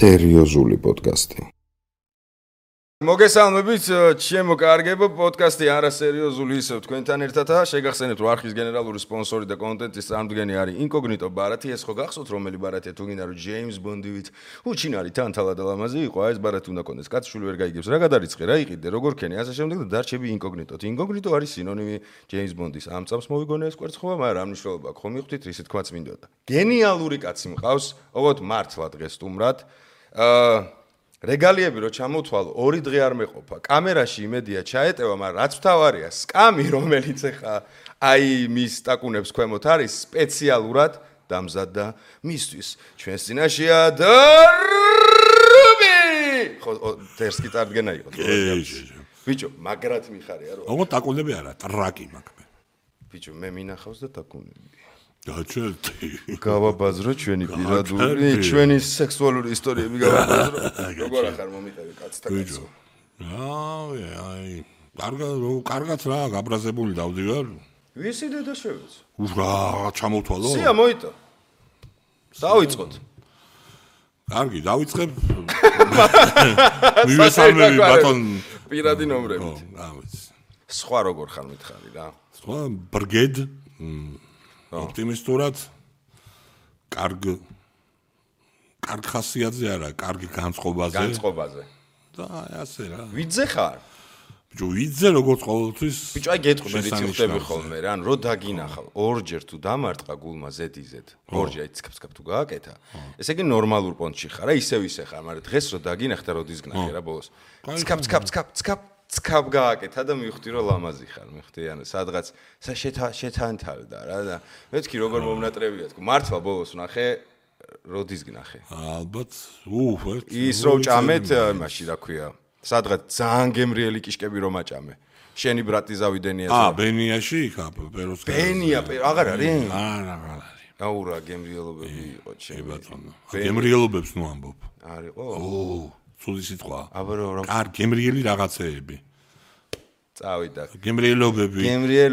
სერიოზული პოდკასტი. მოგესალმებით, ჩემო კარგებო, პოდკასტი არასერიოზული ისევ თქვენთან ერთადაა. შეგახსენებთ, რომ არხის გენერალური სპონსორი და კონტენტის წარმდგენი არის Incognito ბარათი. ეს ხო გახსოვთ, რომელი ბარათია თუ გინდა რომ ჯეიმს ბონდივით უჩინარი თან თალა და ლამაზი იყო, ეს ბარათი უნდა კონდეს. კაცშვილი ვერ გაიგებს, რა გადარიცხე, რა იყიდე, როგორ ქენი, ასე შემდეგ და დარჩები Incognito-თ. Incognito არის სინონიმი ჯეიმს ბონდის. ამ წამს მოვიგონე ეს კვერცხობა, მაგრამ რა მნიშვნელობა აქვს, ხომ მივხვდით, რისი თქმაც მინდოდა. გენიალური კაცი მყავს, ოღონდ მართლა დღეს სტუმრად. რეგალიები რო ჩამოთვალო, 2 დღე არ მეყოფა. კამერაში იმედია ჩაეტევა, მაგრამ რაც მთავარია, სკამი, რომელიც ახლა აი მის ტაკუნებს ქვემოთ არის, სპეციალურად დამზადდა მისთვის. ჩვენს წინაშეა დარუბი. ხო, დერსკი წარდგენა იყო. ბიჭო, მაგრად მიხარია რო. ოღონდ ტაკუნები არა, ტრაკი მაქვს მე. ბიჭო, მე მინახავს და ტაკუნები. დაჩერდი. გავაბაზრო ჩვენი პირადული, ჩვენი სექსუალური ისტორიები გავაბაზრო. როგორ ახარ მომიტევი კაცთა კაცო. აი, კარგად რა, გაბრაზებული დავდივარ. ვისი დედა შევეც? რა, ჩამოვთვალო? სია მოიტო. დავიწყოთ. კარგი, დავიწყებ. მივესალმები ბატონ პირადი ნომრებით. ამის. სხვა როგორ ხარ მითხარი რა? სხვა ბრგედ ოპტიმისტურად კარგ ხასიათზე არა, კარგი განწყობაზე. და ასე რა. ვიძე ხარ? ბიჭო, ვიძე როგორც ყოველთვის. ბიჭო, აი გეტყვი, რითი ხდები ხოლმე რა, რო დაგინახავ, ორჯერ თუ დამარტყა გულმა ზედიზედ. ორჯერ აი ცკაფ თუ გააკეთა. ესე იგი ნორმალურ პონტში ხარ, რა ისევ ხარ, მაგრამ დღეს რო დაგინახდა, როდის გნახე რა ბოლოს. ცკაფ გააკეთა და მივხვდი რომ ლამაზი ხარ, მივხვდი, ანუ სადღაც შეთანთავდა რა და მეთქი როგორ მომნატრებია თქო. მართლა ბოლოს ვნახე, როდის გნახე. ალბათ, ის რო ჭამეთ, იმაში რა ქვია, სადღაც ძალიან გემრიელი კიშკები რომ აჭამე. შენი ბრატი ზავიდენია. ბენიაში იქ პეროს. ბენია, აღარ არის? არა, აღარ არის. აურა გემრიელობები იყო ჩემი. ბატონო. გემრიელობებს ნუ ამბობ. არისო? სული სიტყვა. აბა რომ გემრიელი რაღაცეები. წავიდა. გემრიელობები.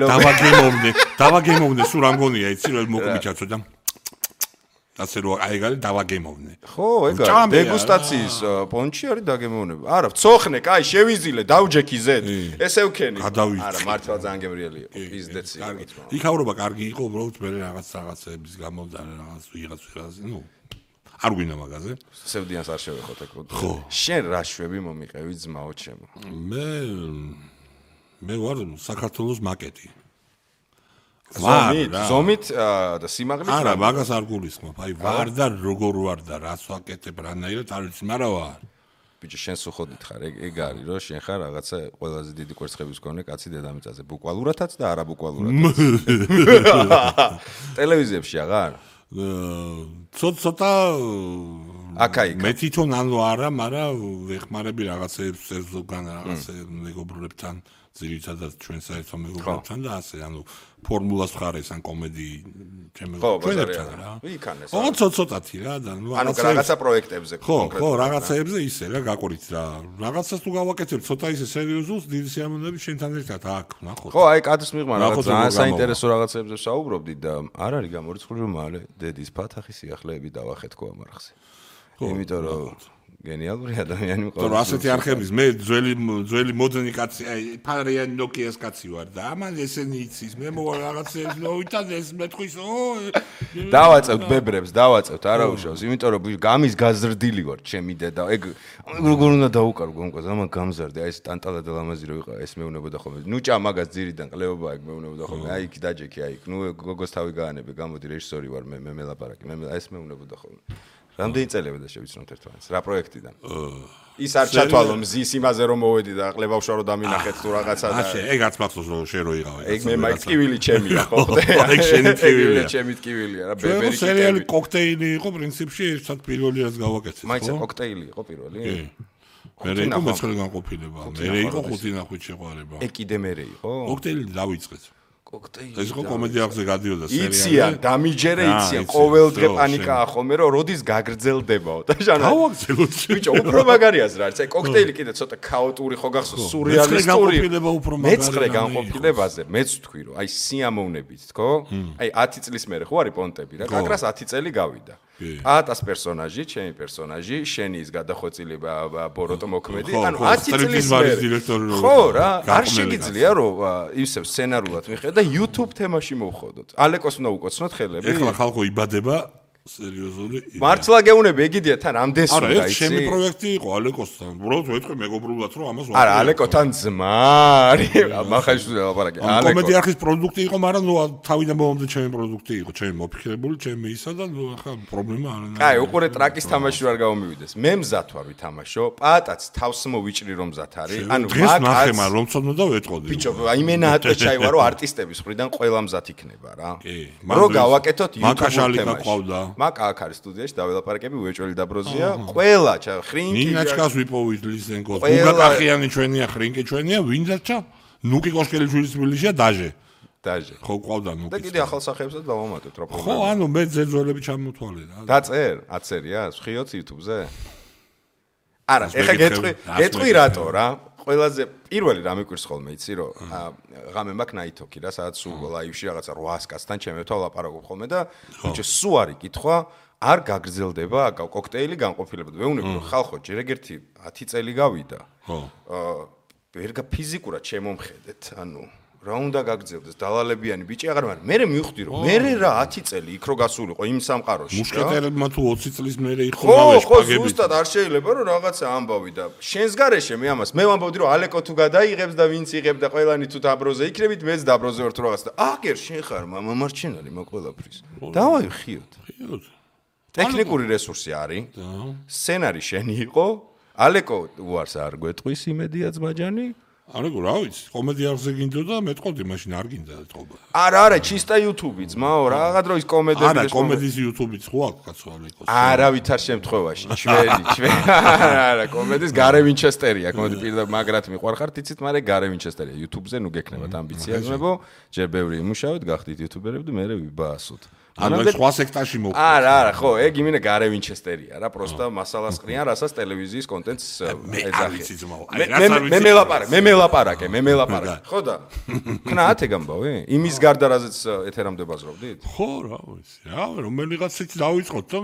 დავაგემოვნე. დავაგემოვნე, სულ რამგონია, იცი რომ მოკმიჩაცო და ასე რომ აი გალი დავაგემოვნე. ხო, ეგა დეგუსტაციის პონჩი არის დაგემოვნება. არა, ვცოხნე, კაი, შევიზილე, დავჯექი ზედ. ესე ვქენი. არა, მართლა ძალიან გემრიელი იყო. პიზდეცი. იქაურობა კარგი იყო, უბრალოდ მე რაღაცების გამო და რაღაც ვიღაც, ნუ არ გვინდა მაგაზე. სევდიანს არ შევეხოთ ეკო. შენ რა შვები მომიყევი ძმაო ჩემო? მე ვარ საქართველოს მაკეტი. ზომით და სიმაღლით? არა, მაგას არ გულისხმობ. აი ვარ და როგორ ვარ და რას ვაკეთებ რანაირად არ ვიცი, მაგრამ ვარ. ბიჭო, შენ სუხოდით ხარ, ეგ არის რომ შენ ხარ რაღაცა ყველაზე დიდი კვერცხების მქონე კაცი დედამიწაზე, ბუკვალურათაც და არაბუკვალურათაც. ტელევიზიებში აღარ? ცოტა აკაიკა. მე თვითონ ანუ არა, მაგრამ ვეხმარები რაღაცეებს ზოგან რაღაცე მეგობრებთან, ძირითადად ჩვენ საერთო მეგობრებთან და ასე, ანუ ფორმულას ხარეს ან კომედი ჩვენებთან რა. იქანეს. ოღონდ ცოტათი რა და ნუ რაღაცა პროექტებზე კონკრეტულად. ხო, რაღაცეებზე ისე რა გაყურით რა. რაღაცას თუ გავაკეთებ ცოტა ისე სერიოზულს, დიდი სიამოვნებით შენთან ერთად აქ, ნახოთ. ხო, აი კადრს მიღმა რაღაც ძალიან საინტერესო რაღაცებზე საუბრობდი და არ არის გამორიცხული რომ მალე დედის ფათახის სიახლეები დავახეთ ხო ამ არხზე. იმიტომ რომ გენიალური ადამიანი მყავს. თორე ასეთი არხების მე ძველი მოდერნი კაცი, აი ფარიანი ნოკიას კაცი ვარ და ამან ესენი იცის. მე მოვა რაღაცებს მოვითან ეს მეთქვის, დავაწევთ ბებრებს, არა უშავს, იმიტომ რომ გამის გაზრდილი ვარ ჩემი დედა. ეგ როგორ უნდა დაუკარო გონკოს, ამან გამზარდე, აი ეს ტანტალა და ლამაზი რო იყო, ეს მეუნებოდა ხოლმე. ნუ ჭა მაგას ძირიდან ყლეობა ეგ მეუნებოდა ხოლმე. აი იქ დაჯექი, აი იქ. ნუ გოგოს თავი გაანებე, გამოდი რეჟისორი ვარ მე მელაპარაკი. მე ეს მეუნებოდა ხოლმე. რამდენი წელია და შევიცნოთ ერთმანეთს? რა პროექტიდან? ის არ ჩათვალო მზის იმაზე რომ მოვედი და ყლებავშა რომ დამინახეთ თუ რაღაცა და ეგაც მახსოვს რომ შენ რო იღავე. ეგ მე მაიქ ტკივილი ჩემია ხო? ეგ შენი ტკივილია. ჩემი ტკივილია რა, ბებერი ტკივილი. სერიალი კოქტეილი იყო პრინციპში, ერთად პირველი რაც გავაკეთეთ. მაიცა კოქტეილი იყო პირველი? მერე იყო მეცხრე განყოფილება. მერე იყო ხუთი ნახვით შეყვარება. ეგ კიდე მერე იყო? კოქტეილი დავიწყეთ. კოქტეილი. ეს იყო კომედიაზე გადიოდა სერიალი. იციან, დამიჯერე იციან, ყოველ დღე პანიკაა ხოლმე რომ როდის გაგრძელდებაო და ჟანა. გავაგრძელოთ. ბიჭო, უფრო მაგარიას რა, აი კოქტეილი კიდე ცოტა ქაოტური ხო გახსოვს, სურეალისტური. მეცხრე განყოფილებაზე მეც ვთქვი რომ აი სიამოვნებით თქო? აი 10 წლის მერე ხო არის პონტები რა, კაკრას 10 წელი გავიდა. პატას პერსონაჟი, ჩემი პერსონაჟი, შენი ის გადახვეწილება ბოროტო მოქმედი, ანუ 10 წლის მერე. ხო რა, არ შეგიძლია რომ ისევ სცენარულად მიხედა და YouTube თემაში მოვხოდოთ. ალეკოს უნდა უკოცნოთ ხელები. ეხლა ხალხო იბადება სერიოზული. მართლა გეუნები ეგიდია თან ამდენს უნდა იცი. არა, ეს ჩემი პროექტი იყო ალეკოსთან. უბრალოდ ვეთქვი მეგობრულად რომ ამას არა, ალეკოთან ძმა არის. მახაშვილია ლაპარაკი. ალეკო კომედი არხის პროდუქტი იყო, მაგრამ ნუ თავიდან მომამდე ჩემი პროდუქტი იყო, ჩემი მოფიქრებული, ჩემი ისა და ნუ ახლა პრობლემა არ არის. კაი, უყურე ტრაკის თამაში არ გამომივიდეს. მე მზად ვარ ვითამაშო. პატაც თავს მოვიჭრი რომ მზად არის. ანუ დღეს ნახე მაგრამ რომ ცოდნა და ვეტყოდი. ბიჭო, აი მე ნატვეჩაი ვარო არტისტების მხრიდან ყველა მზად იქნება რა. რო გავაკეთოთ YouTube თემაში. მაკა აქ არის სტუდიაში დაველაპარაკები უეჭველი დაბროზია ყველა ხრინკი ნინაჩკას ვიპოვით ლისენკოს გუგაკახიანი ჩვენია ხრინკი ჩვენია ვინდაჩა ნუკი კოშკელიშვილი თბილისია დაჟე ხო ყავდა ნუკი და კიდე ახალ სახეებსაც დავამატეთ რა პრობლემა ხო ანუ მე ძეძოლები ჩამოთვალე რა დაწერ აწერია ხიოც YouTube-ზე არა ეხა გეტყვი რატო რა ყველაზე პირველი რა მიკვირს ხოლმე იცი რომ ღამე მაქვს ნაითოქი რა სადაც სულ ლაივში რაღაცა 800 კაცთან ჩემებთან ლაპარაკობ ხოლმე და ბიჭო სულ არის კითხვა არ გაგრძელდება კოქტეილი განყოფილებად ვეუბნები რომ ხალხო ჯერ ეგერთი 10 წელი გავიდა ხო ვერ ფიზიკურად შემომხედეთ ანუ რა უნდა გაგრძელდეს დალალებიანი ბიჭი აღარ მაგრამ მე მივხვდი რომ მე რა 10 წელი იქ რო გასულიყო იმ სამყაროში მუშკეტერებმა თუ 20 წლის მერე იხონავენ შპაგები ხო ზუსტად არ შეიძლება რომ რაღაცა ამბავი და შენს გარეშე მე ამას მე ვამბობდი რომ ალეკო თუ გადაიღებს და ვინც იღებს და ყველანი თუ დაბროზე იქნებით მეც დაბროზე ვარ თუ რაღაცა და აგერ შენ ხარ მამარჩენალი მაგ ყველაფრის დავაი ხიოთ ტექნიკური რესურსი არის სცენარი შენი იყო ალეკო უარს არ გვეტყვის იმედია ძმაჯანი ალეკო რა ვიცი კომედი არზე გინდოდა მეტყოდი მაშინ არ გინდა ეთყობა არა ჩისტა YouTube-ი ძმაო რაღაცა დროის კომედები არა კომედის YouTube-იც ხო აქვს კაცო ალეკოს არა ვითარ შემთხვევაში ჩვენი არა კომედის გარე ვინჩესტერია კომედი პირდაპირ მაგრად მიყვარხართ იცით მაგრამ გარე ვინჩესტერია YouTube-ზე ნუ გექნებათ ამბიცია ძმებო ჯერ ბევრი იმუშავეთ გახდით YouTuber-ები და მე ვიბაასოთ ანუ სხვა სექტაში მოვხდით. არა, ხო, ეგ იმინე გარე ვინჩესტერია რა, პროსტა მასალას ყრიან, რასაც ტელევიზიის კონტენტს ეძახი. მე მელაპარაკე. ხო და? ქნათ ეგ ამბავი? იმის გარდა რაზეც ეთერამდე ბაზრობდით? ხო, რა ვიცი. რა, რომელიღაცით დავიწყოთ და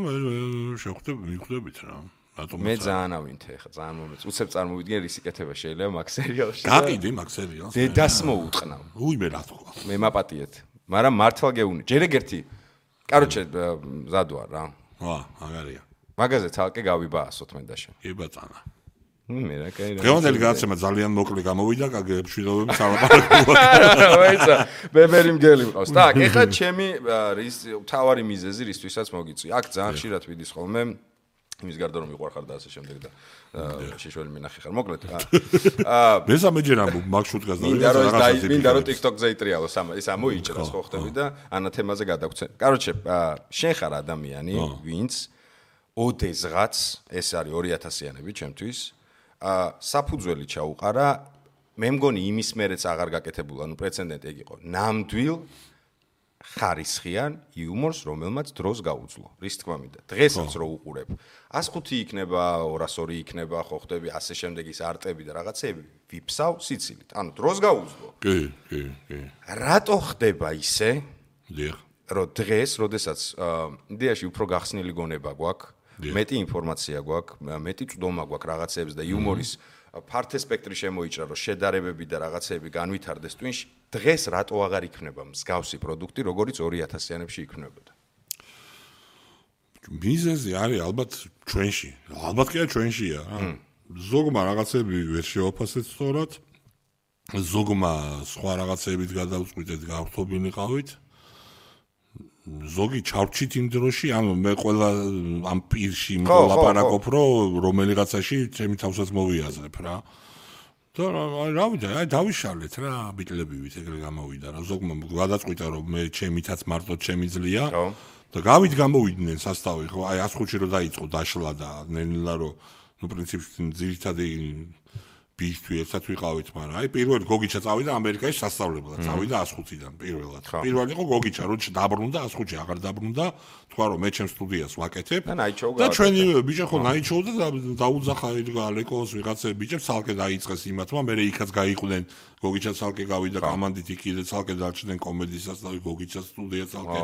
მივხვდებით რა. მე ძალიან ავინთე ხა, ძალიან მომეც. უცებ წარმოვიდგენ რის იკეთება შეიძლება მაგ სერიალში. გაყიდი მაგ სერიალს. დედას მოუტყნავ. უიმე რა თქვა. მე მაპატიეთ. მაგრამ მართლა გეუნი. ჯერ ეგერთი კაროჩე მზად ვარ რა. აგარია. მაგაზე თალკე გავიბაასოთ მე და შენ. კი ბატონო. მე რა კაი რა. დღევანდელი გადაცემა ძალიან მოკლე გამოვიდა, კაგებშვილობები სალაპარაკობთ. ვაიცა, ბებერი მგელი მყავს. так, ეხლა ჩემი თავარი მიზეზი რისთვისაც მოგიწვი. აქ ძალიან ხშირად ვიდის ხოლმე იმის გარდა რომ მიყვარხარ და ასე შემდეგ და შეშველი მინახი ხარ. მოკლედ. მესამეჯერ ამბობ მაგ შუტკას და მინდა რომ TikTok-ზე იტრიალო ის ამოიჭრას ხო ხტები და ანა თემაზე გადაგცენ. კაროჩე, შენ ხარ ადამიანი, ვინც ოდესღაც ეს არის 2000-იანები ჩემთვის საფუძველი ჩაუყარა მე მგონი იმის მერეც აღარ გაკეთებულა, ნუ პრეცედენტი ეგ იყო. ნამდვილ ხარისხიან იუმორს, რომელმაც დროს გაუძლო. რის თქმა მინდა. დღესაც რო უყურებ, 105 იქნება, 202 იქნება, ხო ხტები, ასე შემდეგ ის არტები და რაღაცეები ვიფსავ სიცილით. ანუ დროს გაუძლო. კი. რატო ხდება ისე? დიახ. რომ დღეს, როდესაც იდეაში უფრო გახსნილი გონება გვაქვს, მეტი ინფორმაცია გვაქვს, მეტი წვდომა გვაქვს რაღაცეებს და იუმორის ფართე სპექტრი შემოიჭრა, რომ შედარებები და რაღაცეები განვითარდეს twin-ში, დღეს რატო აღარ იქნება მსგავსი პროდუქტი, როგორც 2000-იანებში იქნებოდა? მიზეზი არის ალბათ ჩვენში. ალბათ კი ჩვენშია. ზოგმა რაღაცები ვერ შევაფასეთ სწორად. ზოგმა სხვა რაღაცებით გადავწყვიტეთ, გავთობილიყავით. ზოგი ჩავრჩით იმ დროში, ანუ მე ყველა ამ პირში მოლაპარაკობ, რომ რომელიღაცაში ჩემი თავსაც მოვიაზრებ რა. და რა ვიცი, აი დავიშალეთ რა, ბიტლებივით ეგრე გამოვიდა რა. ზოგმა გადაწყვიტა, რომ მე ჩემითაც მარტო ჩემი ძლია და გამოვიდნენ სასტავი, ხო, აი 105-ში რო დაიწყო დაშლა და ნელა რომ ნუ პრინციპში ძირითადი ბიჭი ერთად ვიყავით, მაგრამ აი პირველი გოგიჩა წავიდა ამერიკაში სასწავლებლად, წავიდა 105-დან პირველად. პირველი იყო გოგიჩა, რომ დაბრუნდა 105-ში, აღარ დაბრუნდა, თქვა რომ მე ჩემ სტუდიას ვაკეთებ. და ჩვენი ბიჭი ხო ნაიჩოვდა და დაუძახა ალეკოს ვიღაცები ბიჭებს, ცალკე დაიწყეს იმათმა, მე იქაც გაიყვნენ გოგიჩა ცალკე გავიდა კომანდით იქ და ცალკე დარჩნენ კომედისაც და გოგიჩა სტუდია ცალკე.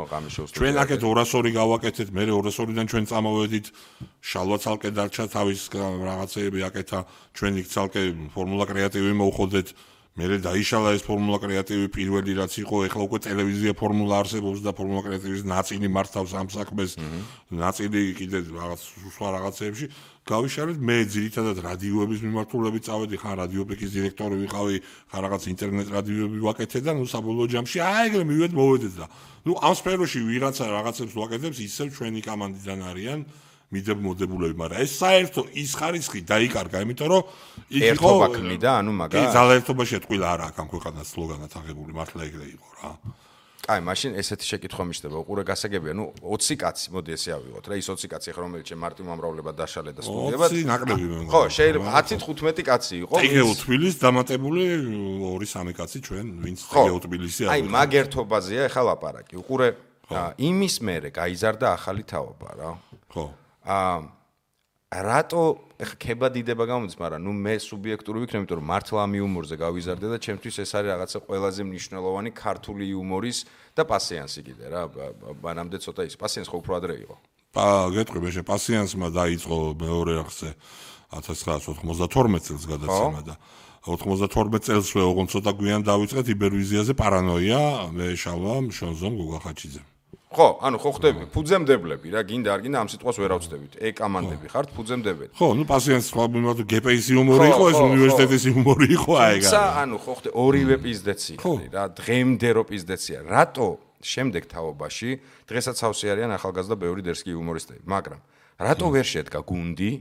ჩვენ აქეთ 202 გავაკეთეთ, მე 202-დან ჩვენ წამოვედით, შალვა ცალკე დარჩა თავის რაღაცეები აკეთა, ჩვენ იქ ცალკე ფორმულა კრეატივი მოვხოდეთ. მერე დაიშალა ეს ფორმულა კრეატივი პირველი რაც იყო, ეხლა უკვე ტელევიზია ფორმულა არსებობს და ფორმულა კრეატივის ნაწილი მართავს ამ საქმეს, ნაწილი კიდე რაღაც სხვა რაღაცეებში. გავიშალეთ მე ძირითადად რადიოების მიმართულებით წავედი, ხან რადიოპეკის დირექტორი ვიყავი, ხან რაღაც ინტერნეტ რადიოები ვაკეთე და ნუ საბოლოო ჯამში ეგრე მივედ მოვედეთ და ნუ ამ სფეროში ვიღაცა რაღაცებს ვაკეთებს, ისევ ჩვენი კომანდიდან არიან მიდებულებები, მაგრამ ეს საერთო ის ხარისხი დაიკარგა, იმიტომ რომ იქ იყო ერთობა ქმნიდა, ანუ მაგას. კი, ძალაერთობაში ეთქვილა არა აქ ამ ქვეყანას სლოგანად აღებული, მართლა ეგრე იყო რა. კაი, მაშინ ესეთი შეკითხვა მიჩნდება, უყურე გასაგებია, ნუ 20 კაცი, მოდი ესე ავიღოთ რა, ის 20 კაცი ახლა რომელიც მარტივ მომრავლება დაშალე და სტუდიებად. 20 ნაკლები მე მგონი. ხო, შეიძლება 10-15 კაცი იყო. ეგეო თბილის დამატებული 2-3 კაცი ჩვენ, ვინც ეგეო თბილისი აი, მაგ ერთობაზეა ახლა ლაპარაკი. უყურე, იმის მერე გაიზარდა ახალი თაობა რა. ხო. რატო ეხა ქება დიდება გამოდის, მაგრამ ნუ მე სუბიექტური ვიქნები, იმიტომ რომ მართლა ამ იუმორზე გავიზარდე და ჩემთვის ეს არის რაღაცა ყველაზე მნიშვნელოვანი ქართული იუმორის და პასიანსი კიდე რა. მანამდე ცოტა ის პასიანს ხო უფრო ადრე იყო. გეტყვი მე პასიანსმა დაიწყო მეორე არხზე 1992 წელს გადაცემა და 92 წელსვე ოღონდ ცოტა გვიან დავიწყეთ იბერვიზიაზე პარანოია, მე შალვა შონზომ გოგახაჩიძე. ხო, ანუ ხო ხდები, ფუძემდებლები რა, გინდა არ გინდა ამ სიტყვას ვერ ავწდებით. კამანდები ხართ, ფუძემდებელი. ხო, ნუ პასიანს სხვა მიმართ გპის იუმორი იყო, ეს უნივერსიტეტის იუმორი იყო, აი ეგ. ანუ ხო ხდე ორივე პიზდეცი რა, დღემდე რო პიზდეცია. რატო შემდეგ თაობაში დღესაც ავსი არიან ახალგაზრდა ბევრი დერსკი იუმორისტები, მაგრამ რატო ვერ შედგა გუნდი,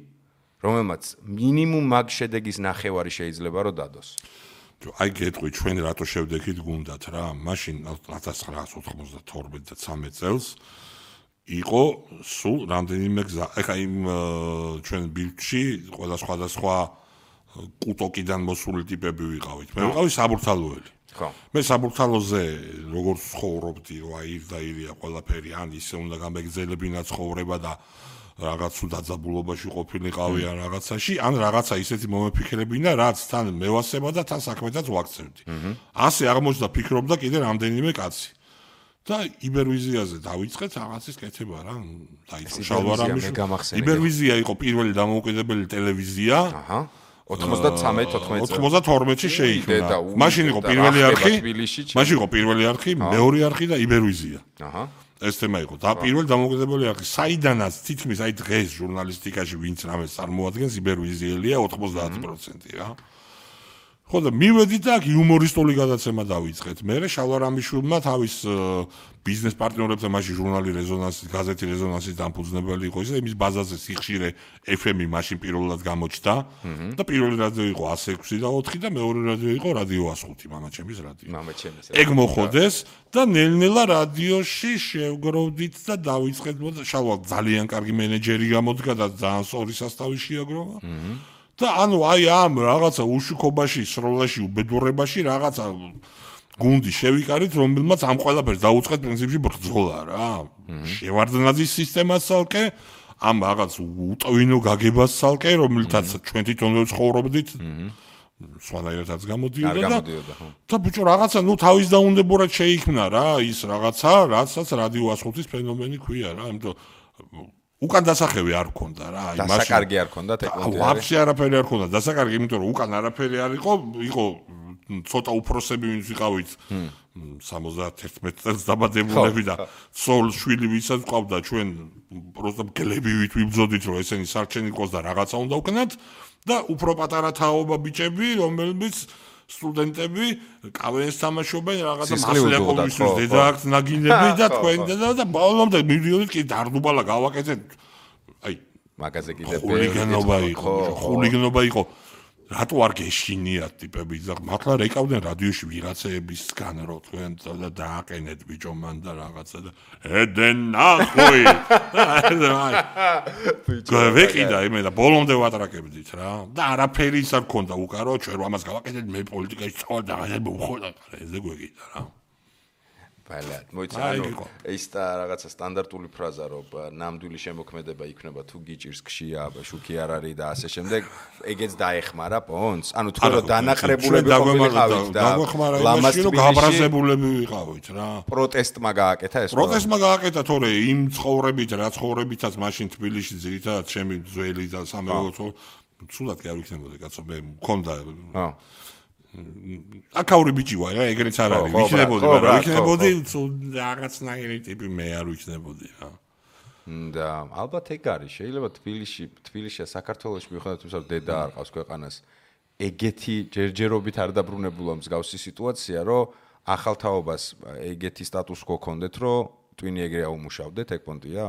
რომელმაც მინიმუმ მაგ შედეგის ნახევარი შეიძლება რომ დადოს? აი გეტყვი ჩვენ რატო შევდექით გუნდათ რა, მაშინ 1992 და 13 წელს იყო სულ რამდენიმე გზა. ეხა იმ ჩვენ ბილდში ყველა სხვადასხვა კუტოკიდან მოსული ტიპები ვიყავით. მე ვიყავი საბურთალოელი. ხო. მე საბურთალოზე როგორც ცხოვრობდი, რა ის და ირია ყველაფერი, ან ისე უნდა გამეგზელებინა ცხოვრება და რაღაც დაძაბულობაში ყოფილიყავი ან რაღაცაში, ან რაღაცა ისეთი მომეფიქრებინა, რაც თან მევასება და თან საქმედაც ვაქცევდი. ასე აღმოჩნდა ფიქრობდა კიდე რამდენიმე კაცი. და იბერვიზიაზე დავიწყეთ რაღაცის კეთება რა, დაიწყო შალვარამიშვილი. იბერვიზია იყო პირველი დამოუკიდებელი ტელევიზია. აჰა. 92-ში შეიქმნა. მაშინ იყო პირველი არხი, მაშინ იყო პირველი არხი, მეორე არხი და იბერვიზია. აჰა. ეს თემა იყო და პირველი დამოუკიდებელი არხი, საიდანაც თითქმის აი დღეს ჟურნალისტიკაში ვინც რამეს წარმოადგენს იბერვიზიელია 90% რა. ხო და მივედით და აქ იუმორისტული გადაცემა დავიწყეთ. მე შალვარამიშვილმა თავის ბიზნეს პარტნიორებთან მაშინ ჟურნალი რეზონანსი, გაზეთი რეზონანსის დამფუძნებელი იყო ის და იმის ბაზაზე სიხშირე FM-ი მაშინ პირველად გამოჩნდა და პირველი რადიო იყო 106 და 4 და მეორე რადიო იყო რადიო 105, მამაჩემის რადიო. მამაჩემის. ეგ მოხოდეს და ნელ-ნელა რადიოში შევგროვდით და დავიწყეთ და შალვა ძალიან კარგი მენეჯერი გამოდგა და ძალიან სწორი სასტავი შეაგროვა. და ანუ აი ამ რაღაცა უშუქობაში, სროლაში, უბედურებაში რაღაცა გუნდი შევიკარით, რომელმაც ამ ყველაფერს დაუწყეთ პრინციპში ბრძოლა რა. შევარდნაძის სისტემას ცალკე, ამ რაღაც უტვინო გაგებას ცალკე, რომელთაც ჩვენ თვითონვე ცხოვრობდით. სხვანაირადაც გამოდიოდა და ბიჭო რაღაცა ნუ თავის დაუნდებურად შეიქმნა რა, ის რაღაცა, რაცაც რადიო 105-ის ფენომენი ქვია რა, იმიტომ უკან დასახევი არ ქონდა რა, აი მაშინ დასაკარგი არ ქონდა ტექნოლოგია. ვაფშე არაფერი არ ქონდა, დასაკარგი, იმიტომ რომ უკან არაფერი არ იყო ცოტა უფროსები ვინც ვიყავით 71 წელს დაბადებულები და ცოლ შვილი ვისაც ყავდა ჩვენ პროსტა გლებივით ვიბრძოდით რომ ესენი სარჩენი იყოს და რაღაცა უნდა უკნათ და უფრო პატარა თაობა ბიჭები რომელიც სტუდენტები კავენს თამაშობენ რაღაცა მასლაკოვისთვის დედააქს ნაგინები და თქვენ და ბოლომდე მივიდოდით კი დარდუბალა გავაკეთეთ აი მაგაზე კიდე ხულიგნობა იყო რატო არ გეშინიათ ტიპები და მართლა რეკავდნენ რადიოში ვიღაცეებისგან რო თქვენ და დააყენეთ ბიჭო მან და რაღაცა და ედენ ნახვი გავეკიდა იმე და ბოლომდე ვატრაკებდით რა და არაფერი ის არ ქონდა უკარო ჩვენ ამას გავაკეთეთ მე პოლიტიკაში წავალ და აღარ მოვხოდა ეზე გვეკიდა რა ბალად მოიცანო ეს და რაღაცა სტანდარტული ფრაზა რომ ნამდვილი შემოქმედება იქნება თუ გიჭირს ქშია შუქი არ არის და ასე შემდეგ ეგეც დაეხმარა პონს ანუ თქვენ რომ დანაყრებულები ყოფილიყავით და ლამაზი რომ გაბრაზებულები ვიყავით რა პროტესტმა გააკეთა ეს პროტესტმა გააკეთა თორე იმ ცხოვრებით რა ცხოვრებითაც მაშინ თბილისში ძირითადად ჩემი ძველი და სამეულო ცუდად კი არ ვიქნებოდი კაცო მე მქონდა აკაური ბიჭი ვარ რა ეგრეც არ არის ვიქნებოდი მაგრამ ვიქნებოდი რაღაცნაირი ტიპი მე არ ვიქნებოდი რა და ალბათ ეგ არის შეიძლება თბილისში საქართველოში მიუხედავად იმისა რომ დედა არ ყავს ქვეყანას ეგეთი ჯერჯერობით არ დაბრუნებულა მსგავსი სიტუაცია რომ ახალ თაობას ეგეთი სტატუს quo ქონდეთ რომ ტვინი ეგრე აუმუშავდეთ ეგ პონტია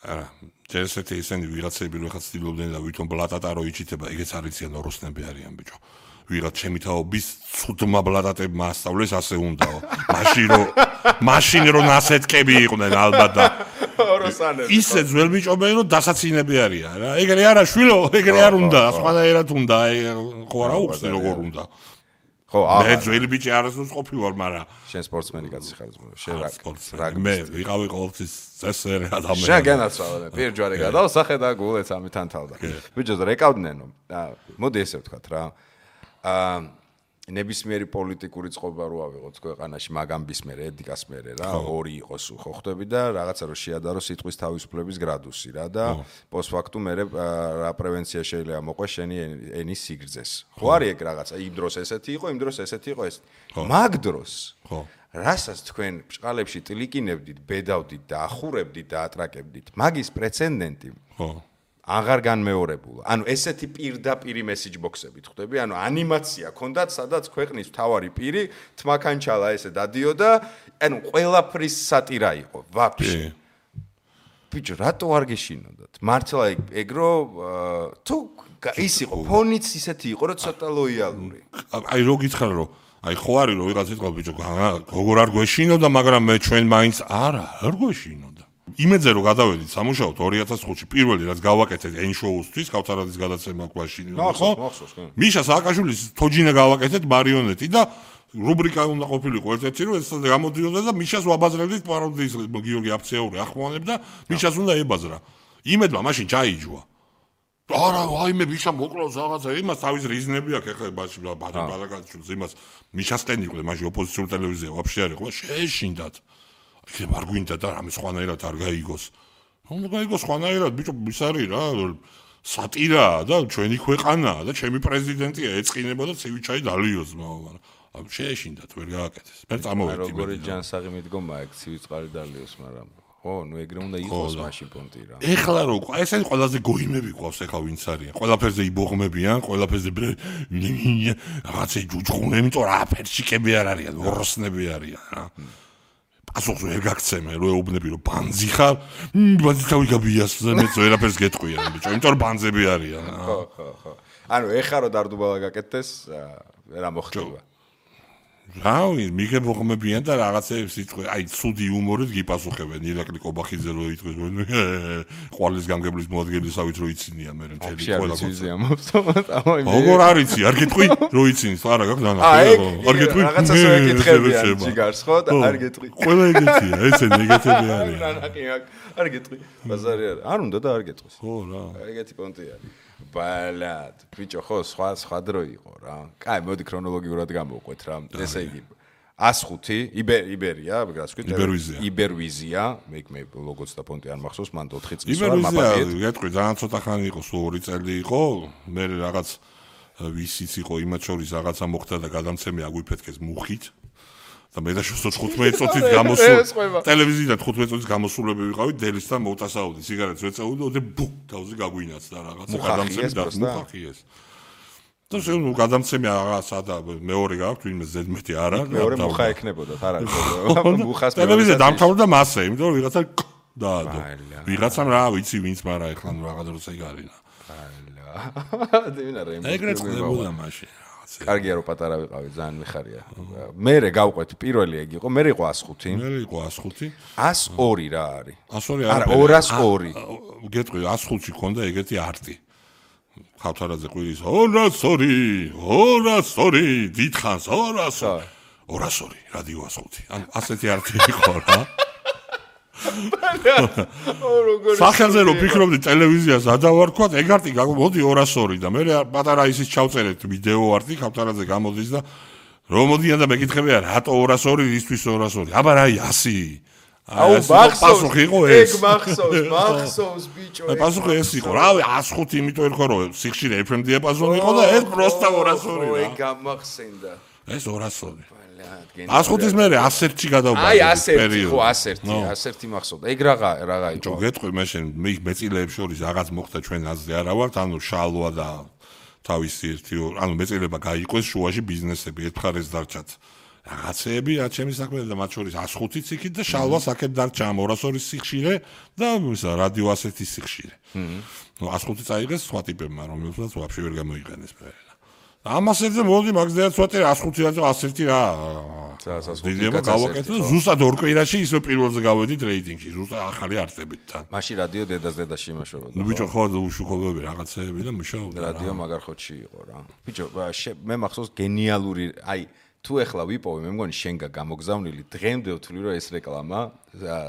არა ჯერ ესეთი ისინი ვიღაცები რო ხა ცდილობდნენ და ვითომ ბლატატა რო იჩიტება ეგეც არიციან ოროსნები არიან ბიჭო ვიღაც ჩემი თაობის ცუდმა ბლატატებმა ასწავლეს ასე უნდაო მაშინ რო ნასეთკები იყვნენ ალბათ და ოროსანები ისე ძველ ბიჭობენ რომ დასაცინები არიან რა ეგრე არა შვილო ეგრე არ უნდა სხვანაირად უნდა ხო არა უხსნი როგორ უნდა ხო მე ძველი ბიჭი არასდროს ყოფილი ვარ მაგრამ შენ სპორტსმენი კაცი ხარ შენ რაგბი მე ვიყავი ყოველთვის წესერი ადამიანი შენ განაცვალე პირჯვარი გადავსახე და გულეც ამით ანთავდა ბიჭო რეკავდნენო მოდი ესე ვთქვათ რა ნებისმიერი პოლიტიკური წყობა რო ავიღოთ ქვეყანაში მაგამბის მერე ედიკას მერე რა ორი იყოს ხო ხვდები და რაღაცა რო შეადარო სიტყვის თავისუფლების გრადუსი რა და პოსტფაქტუმ მერე რა პრევენცია შეიძლება მოყვეს შენი ენის სიგრძეს ხო არის ეგ რაღაცა იმ დროს ესეთი იყო იმ დროს ესეთი იყო ეს მაგ დროს ხო რასაც თქვენ ბჭყალებში ტილიკინებდით ბედავდით და ახურებდით და ატრაკებდით მაგის პრეცედენტი ხო აღარ განმეორებულა. ანუ ესეთი პირდაპირი მესიჯ ბოქსებით ხვდები, ანუ ანიმაცია ქონდათ, სადაც ქვეყნის მთავარი პირი თმაქანჩალა ესე დადიოდა, ანუ ყველაფრის სატირა იყო, ვაფშე. ბიჭო, რატო არ გეშინოდათ? მართლა ეგრო თუ ის იყო, ფონიც ისეთი იყო, რომ ცოტა ლოიალური. აი რო გითხარ რომ აი ხო არის რომ ვიღაც იტყვა ბიჭო, როგორ არ გვეშინოდა, მაგრამ მე ჩვენ მაინც არა, არ გვეშინოდა. იმედზე რომ გადავედით სამუშაოდ 2005-ში პირველი რაც გავაკეთეთ N-show-ისთვის, ქავთარაძის გადაცემა გვაშინ, ხო? მიშა სააკაშვილის თოჯინა გავაკეთეთ მარიონეტი და რუბრიკა უნდა ყოფილიყო ერთ-ერთი რომ ეს გამოდიოდა და მიშას ვაბაზრებდით პაროდიის გიორგი აფცეური ახმოვანებდა, მიშას უნდა ებაზრა. იმედმა მაშინ ჩაიჯვა. არა, აიმე მიშა მოკლავს რაღაცა, იმას თავის რიზნები აქვს ეხლა მაშინ ბადაკაჩვილს იმას მიშასთან იყო მაშინ ოპოზიციური ტელევიზია ვაფშე არ იყო, შეეშინდათ. იქ არ გვინდა და რამე სხვანაირად არ გაიგოს. უნდა გაიგოს სხვანაირად, ბიჭო, ის არის რა, სატირაა და ჩვენი ქვეყანაა და ჩემი პრეზიდენტია ეწყინება და ცივი ჩაი დალიოს, მაგრამ შეეშინდათ ვერ გააკეთეს. მე წამოვედი. როგორი ჯანსაღი მიდგომა ეგ ცივი წყალი დალიოს, მაგრამ ხო, ნუ ეგრე უნდა იყოს მაშინ პონტი რა. ეხლა რო ესენი ყველაზე გოიმები ყავს ეხლა ვინც არიან. ყველაფერზე იბოღმებიან, ყველაფერზე რაღაცა ჯუჯღუნები, იმიტომ რა ფერშიკები არ არიან, ოროსნები არიან რა. ასოხს ვერ გაგცემე, რო ეუბნები რომ ბანძი ხარ, ბანძი თავი გაბიასზე მე ვერაფერს გეტყვიან, ბიჭო, იმიტომ რომ ბანძები არიან. ხო. ანუ ეხლა რო დარდუბალა გაკეთდეს, რა მოხდება? რავი, მიგებოღმებიან და რაღაცეებს იტყვი, აი, ცუდი იუმორით გიპასუხებენ, ირაკლი კობახიძე რო იტყვის, ყვალის გამგებლის მოადგილისავით რო იცინიან მე მთელი ყველა კაცი მოვსწავლოთ, როგორ არიცი, არ გეტყვი, რო იცინის, არა გაქვს დანა. არ გეტყვი, რაღაცას ეკითხებიან ჯიგარს, ხო და არ გეტყვი. ყველა ეგეთია, ესენი ეგეთები არიან. არ გეტყვი, ბაზარი არ უნდა და არ გეტყვის. ხო რა. ეგეთი პონტი არის. ბალად, ბიჭო, ხო, სხვა დრო იყო რა. კაი, მოდი ქრონოლოგიურად გამოვყვეთ რა. ესე იგი 105 იბერია, რა ვთქვით? იბერვიზია, მე ლოგოც და პონტი არ მახსოვს, მან 4 წლის ვარ მაპაკეთ. გეტყვი, ძალიან ცოტა ხანი იყო, სულ 2 წელი იყო. მე რაღაც ვისიც იყო იმათ შორის რაღაცა მოხდა და გადამცემი აგვიფეთქეს მუხით. და მე და 15 წუთით გამოსულ ტელევიზიიდან 15 წუთით გამოსულები ვიყავით დელისთან მოვტასაუდი სიგარეტს ვეწეოდი და ბუ თავზე გაგვინაცდა რაღაცა გადამცემი და მუხახიეს და შენ გადამცემი რაღაცა და მეორე გაქვთ ვინმე ზედმეტი არა მეორე მუხა ექნებოდათ არა მუხას ტელევიზია დამთავრდა მასე იმიტომ რომ ვიღაცა დაადო ვიღაცამ რა ვიცი ვინც მაგრამ ეხლა რაღაც როცა იგარინა ეგრეთ ხდებოდა მაშინ კარგია რომ პატარა ვიყავი, ძალიან მიხარია. მერე გავყვეთ, პირველი ეგ იყო, მერე იყო 105. მერე იყო 105. 102 რა არის? 102 არა, 202. გეტყვი, 105-ში ქონდა ეგეთი არტი. ხავთარაძე ყვირის 202, 202, დიდხანს 200. 202 რადიო 105. ანუ ასეთი არტი იყო რა. სახელზე რომ ფიქრობდი ტელევიზიას ადავარქვათ, ეგ არტი მოდი 202 და მე პატარა ისიც ჩავწერეთ ვიდეო არტი ქავთარაძე გამოდის და რომ მოდიან და მეკითხებია რატო 202 ისთვის 202 აბა რა 100 აუ პასუხი იყო ეს ეგ მახსოვს ბიჭო პასუხი ეს იყო რავი 105 იმიტომ ერქვა რომ სიხშირე FM დიაპაზონი იყო და ეს პროსტა 202 რა ეგ გამახსენდა ეს 202 105-ის მერე 101-ში გადავბა აი 101 ხო 101 მახსოვდა ეგ რაღა იყო ჯო გეტყვი მე შენ მეწილეებს შორის რაღაც მოხდა ჩვენ აზრი არა ვართ ანუ შალვა და თავისი ერთი ანუ მეწილება გაიყვეს შუაში ბიზნესები ერთ მხარეს დარჩათ რაღაცეები რა ჩემი საქმე და მათ შორის 105-იც იქით და შალვას აქეთ დარჩა 202-ის სიხშირე და რადიო 101-ის სიხშირე. ნუ 105-ი წაიღეს სხვა ტიპებმა რომელსაც ვაფშე ვერ გამოიყენეს მე. ამასერზე მოდი მაგზეა ცოტა 105 და 101 რა. დიდება გავაკეთე ზუსტად ორ კვირაში ისე პირველზე გავედით რეიტინგში ზუსტად ახალი არტებით თან. მაშინ რადიო დედას-დედაში იმაშობოდა. ნუ ბიჭო ხო უშუქობები რაღაცეები და მუშაობდა. რადიო მაგარ ხოთში იყო რა. ბიჭო მე მახსოვს გენიალური აი თუ ეხლა ვიპოვე მე მგონი შენგა გამოგზავნილი დღემდე ვთვლი რომ ეს რეკლამა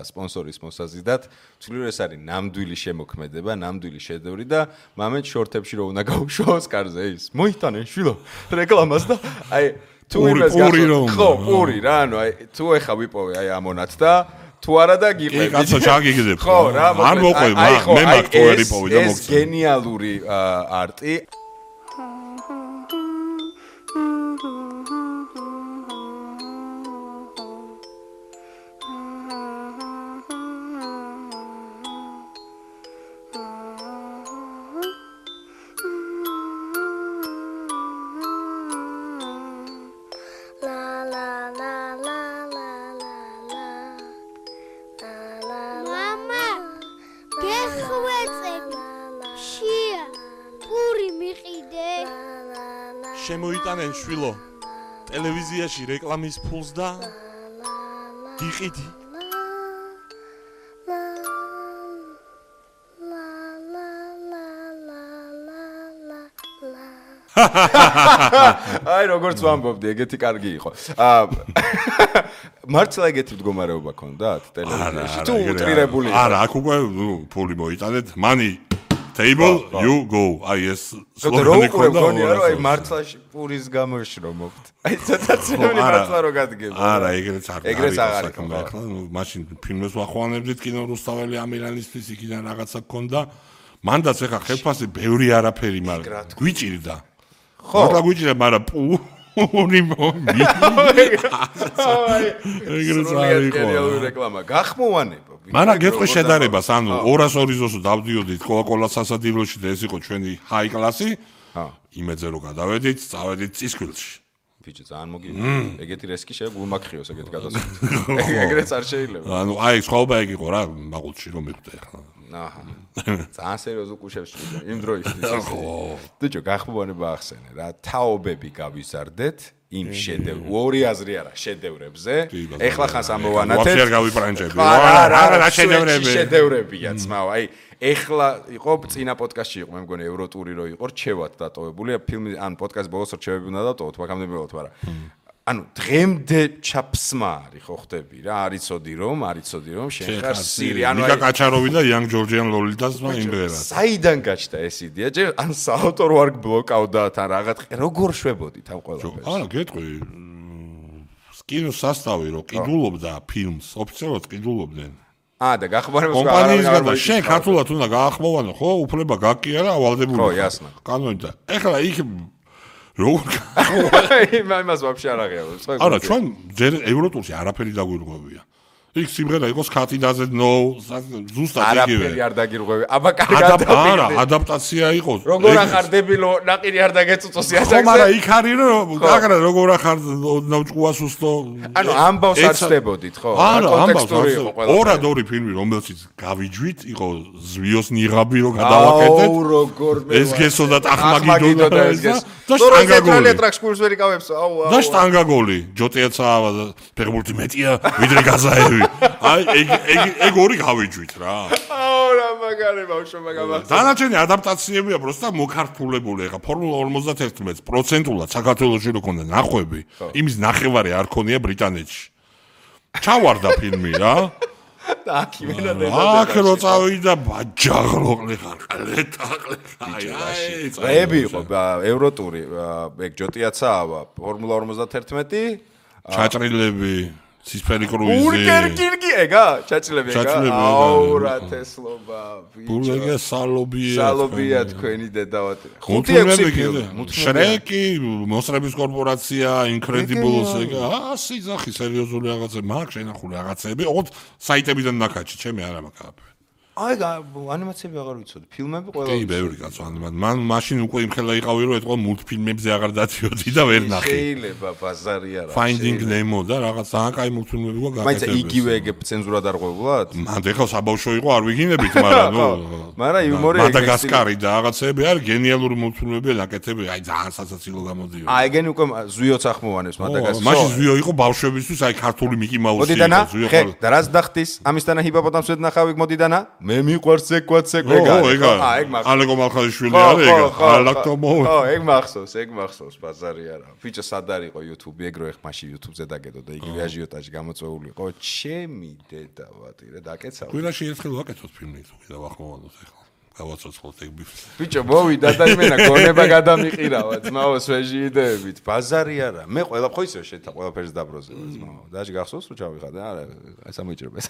სპონსორის მოსაზიდად ვთვლი რომ ეს არის ნამდვილი შემოქმედება ნამდვილი შედევრი და მამეთ შორტებში რომ უნდა გაუშვოს კარზე ის მოიტანენ შვილო რეკლამას და აი თუ იმას გახსოვს ხო პური რა ანუ აი თუ ეხლა ვიპოვე აი ამონათ და თუ არა და გიყევი კაცო ჩაგიგდებ ხო რა არ მოყვე მე მაგ თუ ვერ იპოვე და მოგწევ ეს გენიალური არტი შემოიტანენ შვილო ტელევიზიაში რეკლამის ფულს და გიყიდი აი როგორც ვამბობდი ეგეთი კარგი იყო მართლა ეგეთი მდგომარეობა ქონდათ ტელევიზიაში თუ უტრირებული არა აქ უკვე ფული მოიტანეთ money table you go აი ეს სლოგანი ქონდა რა აი მართლა პურის გამოშრომობთ აი ცოტაცემული მართლა რო გადგება არა ეგრეც აღარ იქნება ახლა მაშინ ფილმებს ვახვანებდით კინო რუსთაველი ამირანისთვის იქიდან რაღაცა ქონდა მანდაც ეხა ხელფასი ბევრი არაფერი მაგრამ გვიჭირდა ხო რა გვიჭირდა მაგრამ პური მომი ეგრეც არის რეკლამა გახმოვანება მარა გეტყვი შედარებას ანუ 202-ს დავდიოდით კოკა-კოლას სასადილოში და ეს იყო ჩვენი ჰაი კლასი იმედზე რომ გადავედით წავედით წისქვილში ბიჭო ძალიან მოგივიდა ეგეთი რესკი შეგვიმაქხიოს ეგეთ გადასვლით ეგრეც არ შეიძლება ანუ აი სხვაობა ეგ იყო რა მაღულში რომ მიხვდე ახლა აჰა ძალიან სერიოზულ კუშებს იმ დროისთვის ბიჭო გახმოვანება ახსენე რა თაობები გავიზარდეთ იმ შედევრ ორი აზრი არა შედევრებზე ეხლა ხანს ამოვანათეთ ვაფშე არ გავიპრანჭები არა შედევრებია ძმაო აი ეხლა იყო წინა პოდკასტში იყო მე მგონი ევროტური რო იყო რჩევად დატოვებული ფილმი ან პოდკასტ ბოლოს რჩევები უნდა დატოვოთ მაგამდე მივოთ მაგრამ ანუ დღემდე ჩაფსმა არის ხო ხდები რა არიცოდი რომ შენ ხარ სირი ანუ ნიკა კაჩაროვი და იან ჯორჯიან ლოლიტას იმბერად საიდან გაჩნდა ეს იდეა ჯერ ან საავტორო არ გბლოკავდა თან რაღაც როგორ შვებოდით ამ ყველაფერს არა გეტყვი კინოს სასტავი რო ყიდულობდა ფილმს ოფიციალურად ყიდულობდნენ და გახმოვანებას კომპანიისგან და შენ ქართულად უნდა გაახმოვანო ხო უფლება გაკია რა ავალდებული ხო იასნა კანონით და ეხლა იქ როგორ იმას ვაფშე არ აღიარებს არა ჩვენ ჯერ ევროტურში არაფერი დაგვირღვევია იქ სიმღერა იყოს ქათიდაზე ნო ზუსტად იგივე არაფერი არ დაგირღვევი აბა კარგად არა ადაპტაცია იყოს როგორ ახარ დებილო ნაყირი არ დაგეწუწოს იასაკზე ხო მაგრამ იქ არის რომ გაგრა როგორ ახარ ნავჭუას უსტო ანუ ამბავს არ ცდებოდით ხო კონტექსტური იყო ყველა ორი ფილმი რომელშიც გავიჯვით იყო ზვიოს ნიღაბი რომ გადავაკეთეთ აუ როგორ ეს გესო და ტახმაგიდო და ეს და შტანგაგოლი ტრაქს ვერი გავებს აუ და შტანგაგოლი ჯოტიაცა ფეხბურთი მეტია ვიდრე გაზაევი აი ეგ ორი გავიჯვით რა აუ რა მაგარი ბავშვო მაგამახსოვს. დანარჩენი ადაპტაციებია პროსტა მოქართულებული. ეხა ფორმულა 51 პროცენტულად საქართველოში რო ქონდა ნახვები, იმის ნახევარი არ ქონია ბრიტანეთში. ჩავარდა ფილმი რა. აქ იმენა აქ რო წავიდა ბაჯაღლოყლი ხალეტაყლი. აი, წები იყო ევროტური, ეგ ჯოტიაცაა, ფორმულა 51. ჩაჭრილები, სისფერი კრუიზი. ბურგერკინგი ეგა, ჩაჭრილები ეგა. აუ რა თესლობა, ბიჭო. ბურგერკი სალობია. სალობია თქვენი დედავატი. 5-6 ფილმი. შრეკი, მოსრების კორპორაცია, Incredibles ეგა, სიზახი სერიოზული რაღაცები, მაგ შენახული რაღაცები, ოღონდ საიტებიდან ნაკაჩი, ჩემი არა მაგაფე. აი, ანიმაციები აღარ ვიცოდი, ფილმები ყველა. კი, ბევრი კაცო ანიმაცია. მან მაშინ უკვე იმხელა იყავი, რომ ეთქვა მულტფილმებზე აღარ დადიოდი და ვერ ნახე. შეიძლება ბაზარი არა. Finding Nemo და რაღაც ძალიან კაი მულტფილმები გვა გაკეთებული. მაინც იგივე ეგ ცენზურა დარღვევულად? მან ეხლა საბავშვო იყო, არ ვიგინებით, მაგრამ ნუ. მაგრამ იუმორი ეგ მადაგასკარი და რაღაცები არის გენიალური მულტფილმები ნაკეთები, აი ძალიან სასაცილო გამოდიოდა. აი, ეგენი უკვე ზვიოც ახმოვანებს მადაგასკარი. მაშინ ზვიო იყო ბავშვებისთვის, აი ქართული მიკი მაუსი იყო ზვიო. ხე, და რას დახტის? ამისთანა ჰიპოპოტამს ვედნახავ იქ მოდიდანა? მე მიყვარს ეკვაც ეგა. ეგ ალეკო მალხაიშვილი არის ეგა. ალაკტომო. ეგ მახსოვს, ბაზარი არა. ფიჭო სად არისო YouTube, ეგრო ეხ მაშინ YouTube-ზე დაგედო და იგივე აჟიოტაჟი გამოწვეული იყო. ჩემი დედავატი რა დაკეცავ. კვირაში ერთხელ ვაკეთოთ ფილმი თუ კიდევ ახმოვანოთ ეხლა. გავაცოცხლოთ ეგ ბიფს. ბიჭო მოვიდა და იმენა გონება გადამიყირავა ძმაო sveži იდეებით. ბაზარი არა. მე ყველა ხო ისე შეთა ყველაფერს დაბროზება ძმაო. დაჟე გახსოვს რომ ჩავიხადე? არა, ესა მოიჭრება.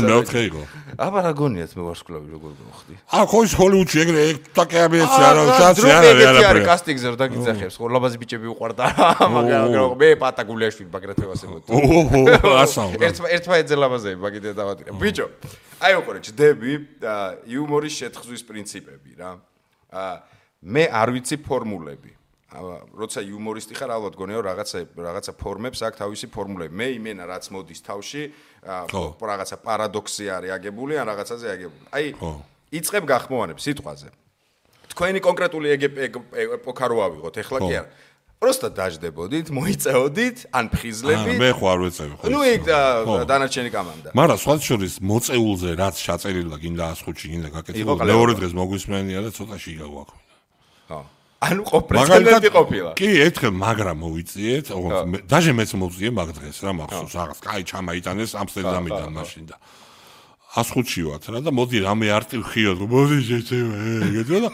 მეოთხე იყო. აბა რა გონიათ მე ვარსკვლავი როგორ მოხდი? ხო ის ჰოლივუდში ეგრე ტაკეები ეცი არა, შანსი არა. კასტინგზე რომ დაგიძახებს, ხო ლაბაზი ბიჭები უყვარდა. მაგრამ მე პატაგულიაშვილი ბაგრატე ვასებოდი. ასაო. ერთმა ეძელაბაზები ბაგიდე დავატირე. ბიჭო აი უყურე ჯდები იუმორის შეთხზვის პრინციპები რა. მე არ ვიცი ფორმულები. როცა იუმორისტი ხარ, ალბათ გონია რომ რაღაცა ფორმებს აქვს თავისი ფორმულები. მე იმენა რაც მოდის თავში, რაღაცა პარადოქსი არის აგებული ან რაღაცაზე აგებული. აი, იწყებ გახმოვანებ სიტყვაზე. თქვენი კონკრეტული ეპოქა რო ავიღოთ, ეხლა კი არა. просто დაждებოდით, მოიწეოდით, ან ფხიზლებით. მე ხო არ ვეწევი ხო. ნუ იქ დანარჩენი კამანდა. მაგრამ სხვა შორის მოწეულზე რაც ჩაწერილა გინდა 105-ში გინდა გაკეთებული. მეორე დღეს მოგვისმენია და ცოტაში იგავაქვდა. ხო. ანუ პრეცედენტი ყოფილა. კი, ერთხელ მაგრამ მოვიწიეთ, ოღონდ დაჟე მეც მოვწიე მაგ დღეს რა მახსოვს, რაღაც კაი ჩამაიტანეს ამსტერდამიდან მაშინ და 105-ში ვართ რა და მოდი რამე არტი ვხიოთ, მოდი შეჩევა, ეგეთო და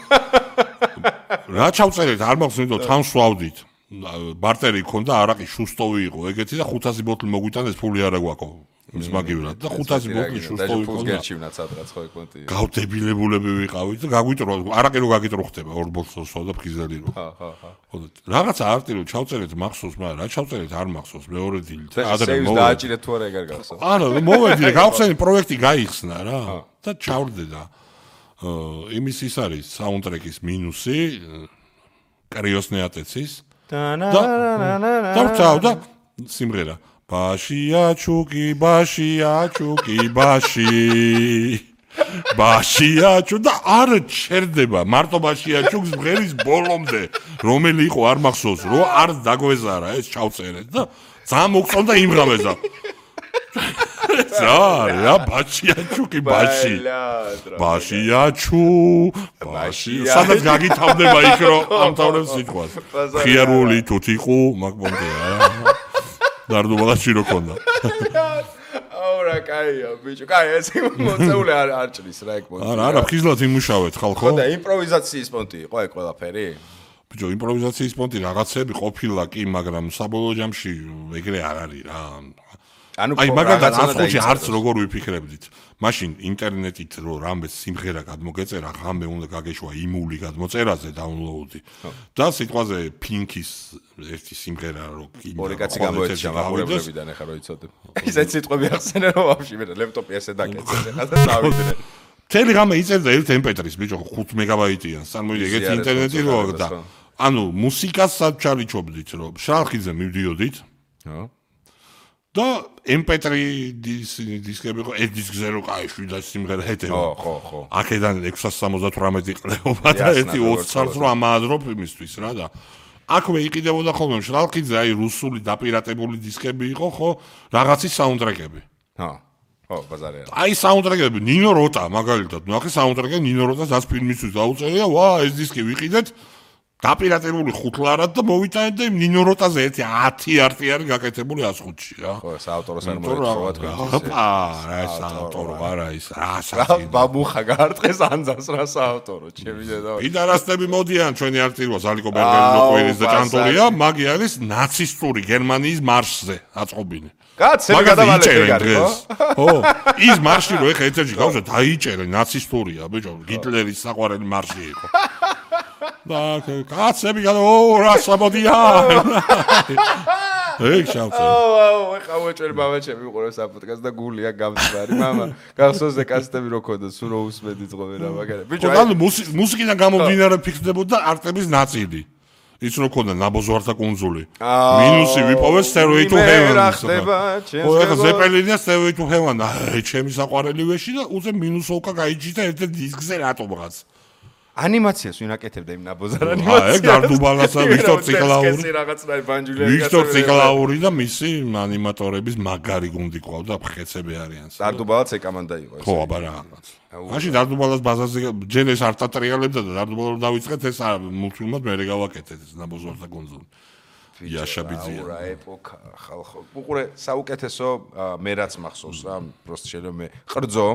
რა ჩავწერეთ, არ მახსოვს, იმიტომ თან სვავდით. ბარტერი ქონდა, არაყი შუსტოვი იყო, ეგეთი და 500 ბოთლი მოგვიტანეს, ფული არა გვაქვს. ის მაგივრად და 500 ბოთლი შუსტოვი ქონდა. გერჩივნაც ადრაც ხო ეკონტი. გავდებილებულები ვიყავით და გაგვიტრო, არაყი რო გაგიტროხდება 2 ბოთლს და ფხიზელი რო. ხო. რაღაცა არტი რო ჩავწერეთ მახსოვს, მაგრამ რა ჩავწერეთ არ მახსოვს, მეორე დილით. ადრე დააჭირეთ თუ არა ეგარ გახსოვს. არა, მოვედი, გავხსენი პროექტი გაიხსნა რა და ჩავრდე და იმის ის არის საუნდტრეკის მინუსი კრიოსნეატეცის და სიმღერა ბაშია ჩუკი ბაშია ჩუ და არ ჩერდება მარტო ბაშია ჩუქს მღერის ბოლომდე რომელი იყო არ მახსოვს რომ არ დაგვეზარა ეს ჩავწერეთ და ძალიან მოგწონდა იმღამეს და რა ბაშია ჩუკი ბაშია ჩუ სადაც გაგითავდება იქ რომ ამთავრებს სიტყვას ხიარული თუთიყუ მაგბონდეა დარდუბალაში რო ქონდა აურა კაია ბიჭო კაი ეს მოწეული არ ჭრის რა ეგ პონტი არა ფხიზლად იმუშავეთ ხალხო ხო და იმპროვიზაციის პონტი იყო ეგ ყველაფერი ბიჭო იმპროვიზაციის პონტი რაღაცები ყოფილა კი მაგრამ საბოლოო ჯამში ეგრე არ არის რა აი მაგალითად 105-ში არც როგორ ვიფიქრებდით მაშინ ინტერნეტით რო რამე სიმღერა გადმოგეწერა ღამე უნდა გაგეშვა იმული გადმოწერაზე დაუნლოუდი და სიტყვაზე პინკის ერთი სიმღერა რო ორი კაცი გამოეჩა მაგურებლებიდან ეხა რო იცოდებ ისეთ სიტყვები ახსენე რომ ვაფშე მე ლეპტოპი ესე დაკეთე ეხა და დავიდნენ თელი ღამე იწერდა ერთ MP3-ს ბიჭო 5 მეგაბაიტიან სამოდი ეგეთი ინტერნეტი რო და ანუ მუსიკას საჩარიჩობდით რომ შალხიძე მივდიოდით ხო და MP3 დისკები ხო ეს დისკზე რო კაი შვიდა სიმღერა ეტევა ხო აქედან 678 ყლეობა და ერთი 20 წელს რო ამაადროფ იმისთვის რა და აქვე იყიდებოდა ხოლმე შალხიძე აი რუსული დაპირატებული დისკები იყო ხო რაღაცის საუნდტრეკები ხო ხო, ბაზარია. აი საუნდტრეკები ნინო როტა მაგალითად, ნახე საუნდტრეკი ნინო როტას ას ფილმისთვის დაუწერია, ვა, ეს დისკი ვიყიდეთ. დაპირატებული 5 ლარად და მოვიტანეთ და ნინო როტაზე ერთი 10 არტი არის გაკეთებული 105-ში რა. ხო, საავტოროს არ მოეწყობა თქვენ. რა ეს საავტორო არა ის რა სახი. ბაბუხა გაარტყეს ანძას რა საავტორო, ჩემი დედა. პიდარასტები მოდიან ჩვენი არტილოს ალიკო ბერგერის ნოყვირის და ჭანტურია, მაგი არის ნაცისტური გერმანიის მარშზე აწყობილი. კაცები გადავალეთ ეგ არის, ხო? ის მარში რო ეხა ეთერში გავშვა დაიჭერე ნაცისტურია, ბიჭო, ჰიტლერის საყვარელი მარში იყო. და კაცები რა სამოდიან. ეგ შავწე. ეხა უეჭველი მამაჩემი უყურებს აპოდკასტს და გულია გამწვარი, მამა. გახსოვს კასტები რო ქონდა, სულ რო უსმედი ძღობენ რა მაგარი. ბიჭო, ანუ მუსიკიდან გამომდინარე ფიქსდებოდა არტების ნაწილი. ის რო ქონდა ნაბოზვართა კუნძული. მინუსი ვიპოვე Stairway to Heaven. ხო, ეხა ზეპელინია Stairway to Heaven. აი, ჩემი საყვარელი ვეში და უზე მინუსოვკა გაიჭიდა ერთ დისკზე რატომღაც. ანიმაციას ვინ აკეთებდა იმ ნაბოზარ ანიმაციას? ეგ დარდუბალასა ვიქტორ ციკლაური. რაღაცნაირ ბანჯულიანი. ვიქტორ ციკლაური და მისი ანიმატორების მაგარი გუნდი ყავდა, ხეცები არიან. დარდუბალაც ეკამანდა იყო ეს. ხო, აბა რაღაც. მაშინ დარდუბალას ბაზარზე ჯერ ეს არ ტატრიალებდა და დარდუბალა რომ დავიწყეთ ეს მულტფილმად მე გავაკეთეთ ეს ნაბოზვართა კუნძული. იაშაბიძია. რა ეპოქა ხალხო. უყურე საუკეთესო მე რაც მახსოვს რა, პროსტ შეიძლება მე ყრძო.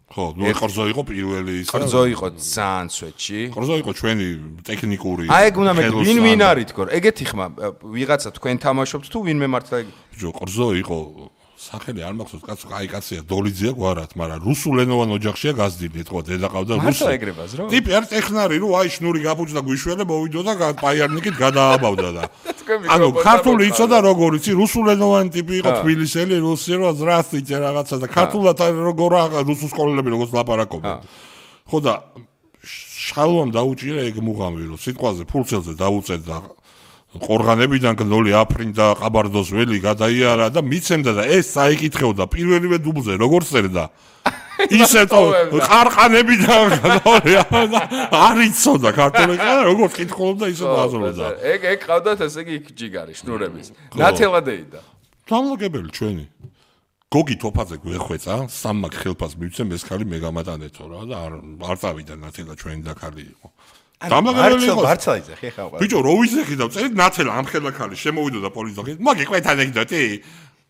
ხო, ნუ ყრძო იყო პირველი ის. ყრძო იყო ძალიან სვეტში. ყრძო იყო ჩვენი ტექნიკური. აი ეგ უნდა მე ვინ არის თქო, ეგეთი ხმა ვიღაცა თქვენ თამაშობთ თუ ვინმე მართლა ეგ. ბიჭო, ყრძო იყო სახელი არ მახსოვს, კაცო, აი კაცია, დოლიძია გვარად, მაგრამ რუსულენოვან ოჯახშია გაზრდილი, ეთქვა დედა ყავდა რუსი. მართლა ეგრებას რო? ტიპი არ ტექნარი, რო აი შნური გაფუჭდა გვიშველი, მოვიდო და პაიარნიკით გადააბავდა და. ანუ ქართული იცოდა როგორ იცი, რუსულენოვანი ტიპი იყო, თბილისელი, რუსი რო ზრასტიჭე რაღაცა და ქართულად როგორ რუსულ სკოლელები როგორც ლაპარაკობენ. ხო და შალვამ დაუჭირა ეგ მუღამი, რომ სიტყვაზე ფულცელზე დაუწეთ და ყორღანებიდან გნოლი აფრინდა ყაბარდოს ველი გადაიარა და მიცემდა და ეს საიკითხეოდა პირველივე დუბლზე როგორ წერდა ისეთო ყარყანებიდან გნოლი არ იცოდა ქართული კანა როგორ კითხულობდა ისე დააზრდა ეგ ყავდათ ესე იგი ჯიგარი შნურების ნათელადეიდა დამლაგებელი ჩვენი გოგი თოფაძე გვეხვეწა სამმაკ ხელფას მივცემ ეს ხალი მე გამატანეთო რა და არ წავიდა ნათელა ჩვენი დაქალი იყო მართლა იზახი ხა ვარ. ბიჭო, რო ვიზახი და წერით ნათელა ამ ხელა ხალი შემოვიდა და პოლიცია. მაგი ყვეთ ანეკდოტი.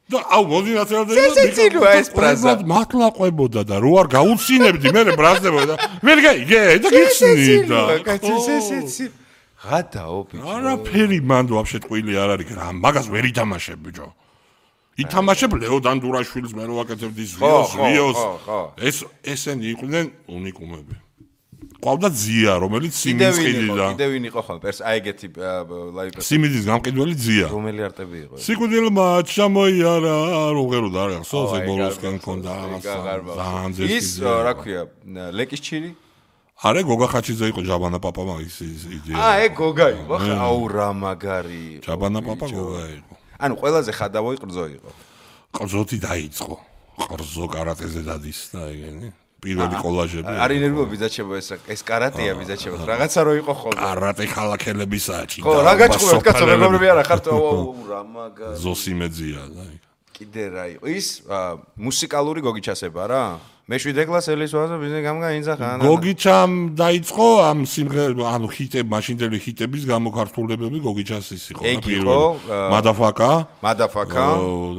და აუ მოდი ნათელა და ცეცილოა ეს ბრაზა. მართლა ყვებოდა და რო არ გაუცინებდი მე ბრაზდებოდა. ვერ გაიგე და გიხსნი და. კაცი გადაო ბიჭო. არაფერი მან ვაფშე ტყვილი არ არის რა. მაგას ვერ ითამაშებ ბიჭო. ითამაშებ ლეო დანდურაშვილის მე რო ვაკეთებდი ვიოს. ეს ესენი იყვნენ უნიკუმები. ყავდა ზია, რომელიც სიმიდის ყიდიდა. კიდევ ვინ იყო ხოლმე? აი ეგეთი ლაივა. სიმიდის გამყიდველი ზია. რომელი არტები იყო? სიკვდილმა ჩამოიარა, როგერო და არა, სოზე ბოლოსკენ ქონდა რაღაცა. ის რა ქვია, ლეკის ჩირი? არა, გოგა ხაჩიძე იყო ჯაბანა პაპა მაგის იდეა. ეგ გოგა იყო. აუ რა მაგარი. ჯაბანა პაპა გოგა იყო. ანუ ყველაზე ხადავოი ყრძო იყო. ყრძოთი დაიწყო. ყრძო კარატეზე დადის და ეგენი. პირველი კოლაჟები. არის ნერვები ბიძაჩებო ეს კარატეა ბიძაჩებო. რაღაცა რო იყო ხოლმე. კარატე ხალახელებისაა ჭიდა. ხო, რა გაჭყურებთ კაცო, მეგობრები არა ხართ? რა მაგარი. ზოსიმეძია და კიდე რა იყო? ის მუსიკალური გოგიჩასება რა? მე-7 კლასელის ვაზა ბიზნეს გამგაინძახა. გოგიჩამ დაიწყო ამ სიმღერა, ანუ ჰიტები, მაშინდელი ჰიტების გამოქართულებები გოგიჩასის იყო. მადაფაკა.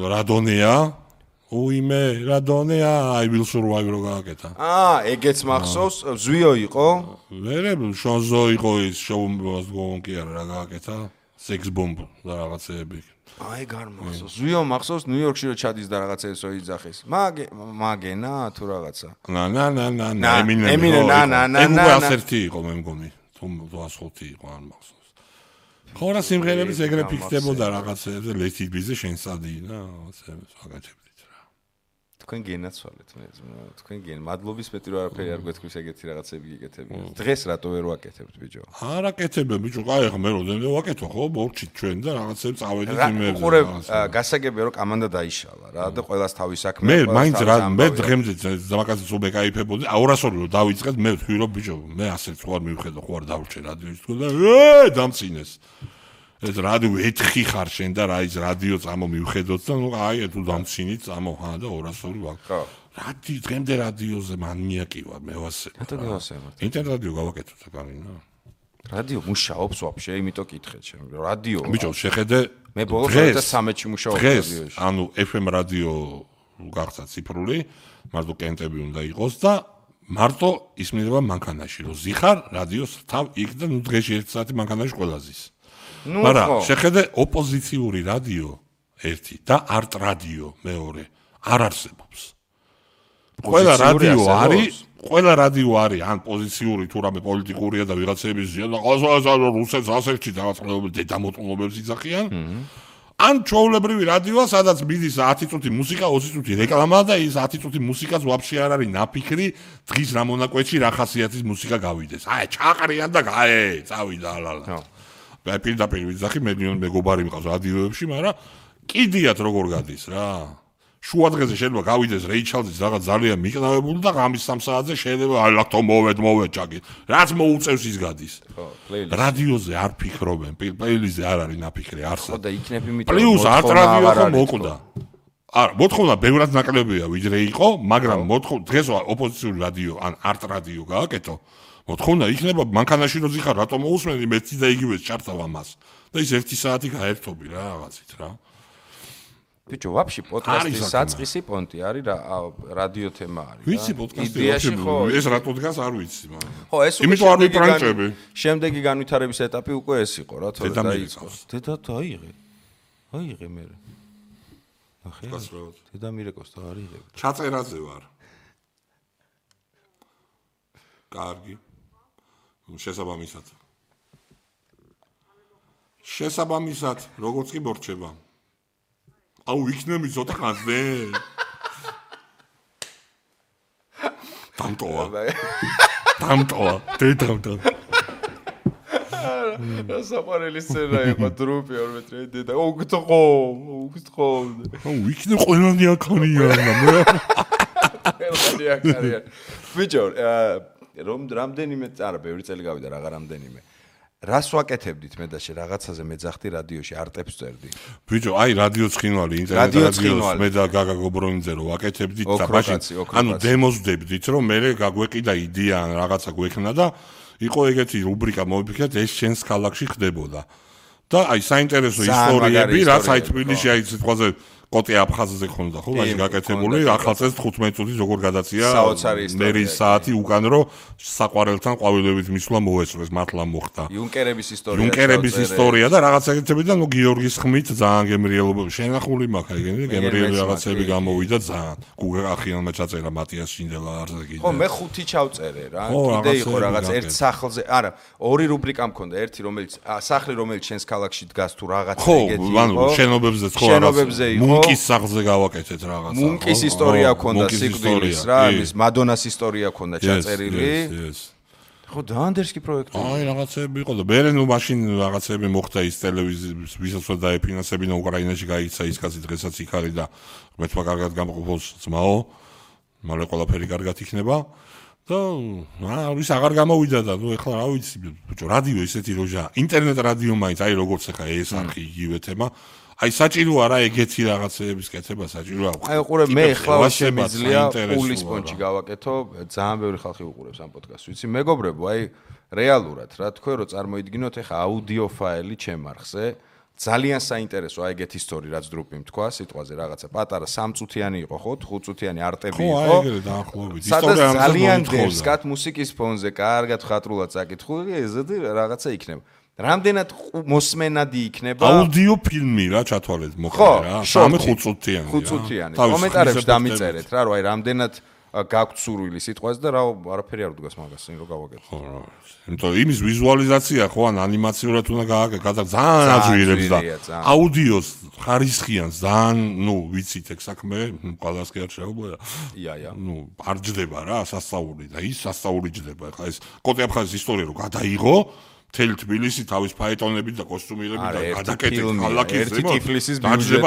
რადონეა. უიმე რადონეა I will survive რო გააკეთა. ეგეც მახსოვს, ზვიო იყო. ვერე შონზო იყო ის შოუმ გონკი არა რა გააკეთა. Sex bomb და რაღაცეები. აი გარმახსოვს. ზვიო მახსოვს ნიუ-იორკში რო ჩადის და რაღაცა ესო იძახის. მაგენა თუ რაღაცა. ემინე ასერთი იყო მე მგონი. თუ 205 იყო არ მახსოვს. ხო რა სიმღერების ეგრე ფიქრდებოდა რაღაცეებზე ლეთიბიზე შენსადინა რაღაცეებს ვაკეთებდით. თქვენ გენაცვალეთ მე თქვენ გენ მადლობის მეტი რა არაფერი არ გვეთქვის ეგეთი რაღაცები გიკეთები დღეს რატო ვერ ვაკეთებთ ბიჭო არ აკეთებენ ბიჭო კაი ხა მე როდენმე ვაკეთო ხო ბორჩი ჩვენ და რაღაცები წავედით იმერზე უყურე გასაგებია რომ კამანდა დაიშალა რა და ყოველას თავის საქმე მე მაინც რა მე დღემდე ზამაკაცის უბეკაიფებოდი 200 რო დავიწყეთ მე ვთქვი რომ ბიჭო მე ასე სხვა არ მივხედო ხო არ დავრჩე რადიოს თქო და დამწინეს ეს რადიო ეთხი ხარ შენ და რა ის რადიო წამო მივხედოთ და ნუ აი თუ დამცინით წამო და 200 ვარ. ხო. რადიო დღემდე რადიოზე მანიაკი ვარ მე ვასე. ინტერნეტ რადიო გავაკეთოთ აკარინა. რადიო მუშაობს ვაფშე, იმიტომ კითხეთ შენ. რადიო. ბიჭო, შეხედე მე ბოლოს 2013-ში მუშაობ რადიოში. ანუ FM რადიო გახსა ციფრული, მარტო კენტები უნდა იყოს და მარტო ისმინება მანქანაში, რომ ზიხარ რადიოს თავ იქ და ნუ დღეში 1 საათი მანქანაში ყველა ზის. მაგრამ შეხედე ოპოზიციური რადიო 1 და არტ რადიო მეორე არ არსებობს. ყველა რადიო არის ან პოზიციური თუ რამე პოლიტიკურია და ვიღაცების ზია და ყოველგვარ რუსეთს ასეთში დაწყობილ დედამოწყობილებს იძახიან. ან ჩვეულებრივი რადიოა, სადაც მიდის 10 წუთი მუსიკა, 20 წუთი რეკლამა და ის 10 წუთი მუსიკაც ვაფშე არ არის ნაფიქრი, დღის რა მონაკვეთში რა ხასიათის მუსიკა გავიდეს. აი, ჩაყრიან და წავიდა ალალა. აი, პირდაპირ ვიძახი, მეგობარი მყავს რადიოებში, მაგრამ კიდიათ როგორ გადის რა. შუა დღეზე შეიძლება გავიდეს რეიჩალდის რაღაც ძალიან მიყნავებული და ღამის 3 საათზე შეიძლება აი ლათო მოვედ ჭაკი. რაც მოუწევს ის გადის. რადიოზე არ ფიქრობენ, პლეილისტზე არ არის ნაფიქრი, არსად. ხო და იქნებ იმიტომ პლუს არტ რადიო ხო მოკვდა. არა, მოთხოვნა ბევრად ნაკლებია ვიდრე იყო, მაგრამ დღეს ოპოზიციური რადიო ან არტ რადიო გააკეთო. მოთხოვნა იქნება მანქანაში რო ზიხარ, რატომ მოусმენი მეც და იგივე ჩართავ ამას. და ის 1 საათი გაერთობი რა რაღაცით რა. ბიჭო, ვაფშე პოდკასტის საწყისი პონტი არის რა რადიო თემა არის რა. ვიცი პოდკასტი ეს რატო დგას არ ვიცი მაგრამ. ხო, ეს უკვე შემდეგი განვითარების ეტაპი უკვე ეს იყო რა, თორე დაიწყო. დედა დაიღე. აიღე მე. ახე. დედა მირეკოს და არიღე. ჩაწერაზე ვარ. კარგი. შესაბამისად, როგორც კი მორჩება. აუ იქნები ცოტა ხანზე. დამტოა. დედამტო. რა საყვარელი სცენა იყო დრუპი 2 მეტრი დედა. უგთხოვ. აუ იქნე ყველანი აქარია. ბიჭო, რამდენიმე არა, ბევრი წელი გავიდა რაღა რამდენიმე. რას ვაკეთებდით მე და შე რაღაცაზე მეძახდი რადიოში არტებს წერდი. ბიჭო, აი რადიო ცხინვალი, ინტერნეტ რადიოს მე და გაგა გობრონიძე რო ვაკეთებდით და მაშინ ანუ დემოსდებდით რომ მე გაგვეყიდა იდეა ან რაღაცა გვექნა და იყო ეგეთი რუბრიკა მოვიფიქრეთ ეს შენს ქალაქში ხდებოდა. და აი საინტერესო ისტორიები რაც აი თბილისში აი სიტყვაზე კოტე აფხაზზე ხონდა ხო მაშინ გაკეთებული ახალწელს 15 წუთი როგორ გადაცია მერის საათი უკან რო საყვარელთან ყვავილებით მისვლა მოესწრეს მართლა მოხდა იუნკერების ისტორია და რაღაც ეგეთები და ნუ გიორგის ხმით ძალიან გემრიელობა შენახული მაქვს ეგენი გემრიელი რაღაცები გამოვიდა ძალიან გუგახიანმა ჩაწერა მატიას შინდელა არზე კიდე ხო მე 5 ჩავწერე რა კიდე იყო რაღაც ერთ სახლზე არა ორი რუბრიკა მქონდა ერთი რომელიც სახლი რომელიც შენს ქალაქში დგას თუ რაღაც ეგეთი იყო ხო შენობებზე ხო შენობებზე იყო მუნკის სახლზე გავაკეთეთ რაღაცა. მუნკის ისტორია ქონდა სიკვდილის რა, ის მადონას ისტორია ქონდა ჩაწერილი. ხო, დაანდერსკი პროექტი. აი, რაღაცები იყო და მე ნუ მაშინ რაღაცები მოხდა ის ტელევიზიის ვისაც დაეფინანსებინა უკრაინაში გაიცა ის კაცი დღესაც იქ არის და მეთქვა კარგად გამყოფოს ძმაო. მალე ყველაფერი კარგად იქნება. და ის აღარ გამოვიდა და ნუ ეხლა რა ვიცი, ბიჭო, რადიო ისეთი როჟა, ინტერნეტ რადიო მაინც აი როგორც ახლა ეს არხი იგივე თემა. აი საჭირო არა ეგეთი რაღაცეების კეთება საჭირო აქვს. აი უყურებ მე ახლა შემიძლია პულის პონჩი გავაკეთო, ძალიან ბევრი ხალხი უყურებს ამ პოდკასტს. ვიცი მეგობრებო, აი რეალურად რა თქვენ რომ წარმოიდგინოთ ახლა აუდიო ფაილი ჩემ არხზე, ძალიან საინტერესო აი ეგეთი ისტორია რაც დრუპი თქვა სიტყვაზე რაღაცა პატარა 3 წუთიანი იყო ხო 5 წუთიანი არტები იყო. ხო, აი ეგრე დაახლოებით. ისტორია ძალიან დერსკათ მუსიკის ფონზე კარგად ხატრულად წაკითხული, ესეთი რაღაცა იქნება. რამდენად მოსმენადი იქნება აუდიო ფილმი რა ჩათვალეთ მოხდა რა 3-5 წუთიანი 5 წუთიანი კომენტარებში დამიწერეთ რა რომ აი რამდენად გაქვთ სურვილი სიტყვაზე და რა არაფერი არ დგას მაგას რომ გავაკეთო ხო რა იმიტომ იმის ვიზუალიზაცია ხო ან ანიმაციურად უნდა გააკეთო ძალიან აძვირებს და აუდიოს ხარისხიან ძალიან ნუ ვიცით ეგ საქმე ყველას კი არ შეუძლია ია ნუ არ ჯდება რა სასწაული და ის სასწაული ჯდება ხა ეს კოტე აფხაზის ისტორია რომ გადაიღო მთელი თბილისი თავის ფაეტონებით და კოსტუმირებით და გადაკეთეთ ქალაქის ერთი ტიფლისის ბიუჯეტი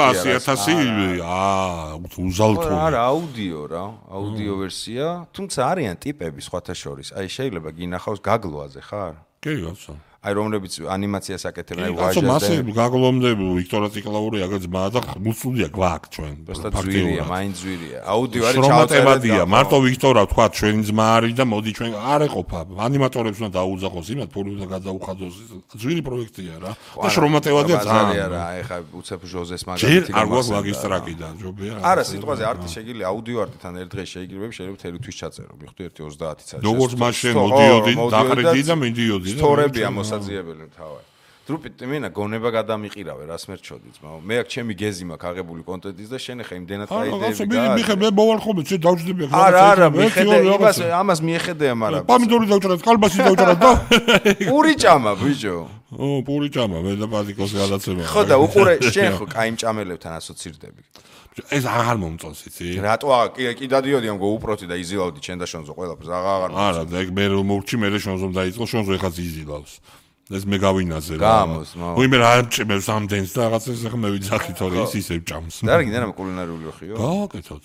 უზალთო არა აუდიო ვერსია თუმცა არიან ტიპები სხვათა შორის აი შეიძლება გინახავს გაგლოაზე ხარ კი გასა აი რომლებიც ანიმაციას აკეთებენ, აი ვაჟაზე. მასე გაგლომდები ვიქტორა ციკლაური აგ ძმა და მუცლუდია გვაქვს ჩვენ. ფაქტია, მაინც ძვირია. აუდიო არის ჩავწერადია. მარტო ვიქტორა თქვა ჩვენი ძმა არის და მოდი ჩვენ არ ეყოფა. ანიმატორებს უნდა დაუძახოს იმათ, ფული უნდა გადაუხადოს. ძვირი პროექტია რა. და შრომატევადია ძალიან რა, ეხა უცებ ჟოზეს მაგალითი არ გვაქვს მაგისტრაკიდან, ჯობია. არა, სიტყვაზე არტი შეიძლება აუდიო არტთან ერთ დღეს შეიძლება მთელი თვის ჩაწერო. მიხდი 1:30 საათი. როგორც მაშინ მოდიოდი, დახრედი და მიდიოდი. სტორებია მოსაძიებელი თავად. დრუპით მინა გონება გადამიყირავე რას მერჩოდი ძმაო. მე აქ ჩემი გეზი მაქვს აღებული კონტენტის და შენ ხა იმდენად აიდეები გა. მიხე მე მოვალ ხოლმე შე დავჯდები ახლა. არა, მიხედე ამას მიეხედეა, მაგრამ პომიდორი დავჭრა, კალბასი დავჭრა და პური ჭამა ბიჭო. პური ჭამა, მე და პაზიკოს გადაცემა. ხო და უყურე შენ ხო კაი მჭამელებთან ასოცირდები. ეს აღარ მომწონს იცი? რატო კი დადიოდი ამგო უპროტი და იზილავდი ჩენ და შონზო ყველაფერს აღარ მომწონს. არა, და ეგ მე რომ მოვჭი მე შონზომ დაიწყო, შონზო ეხაც იზილავს. ეს მე გავინაზე რა. გამოს, მო. უიმე რა მჭმევს ამდენს და რაღაცას ახლა მე ვიძახი თორე ის ისე ჭამს. და რა გინდა რა კულინარიული ოხიო? გავაკეთოთ.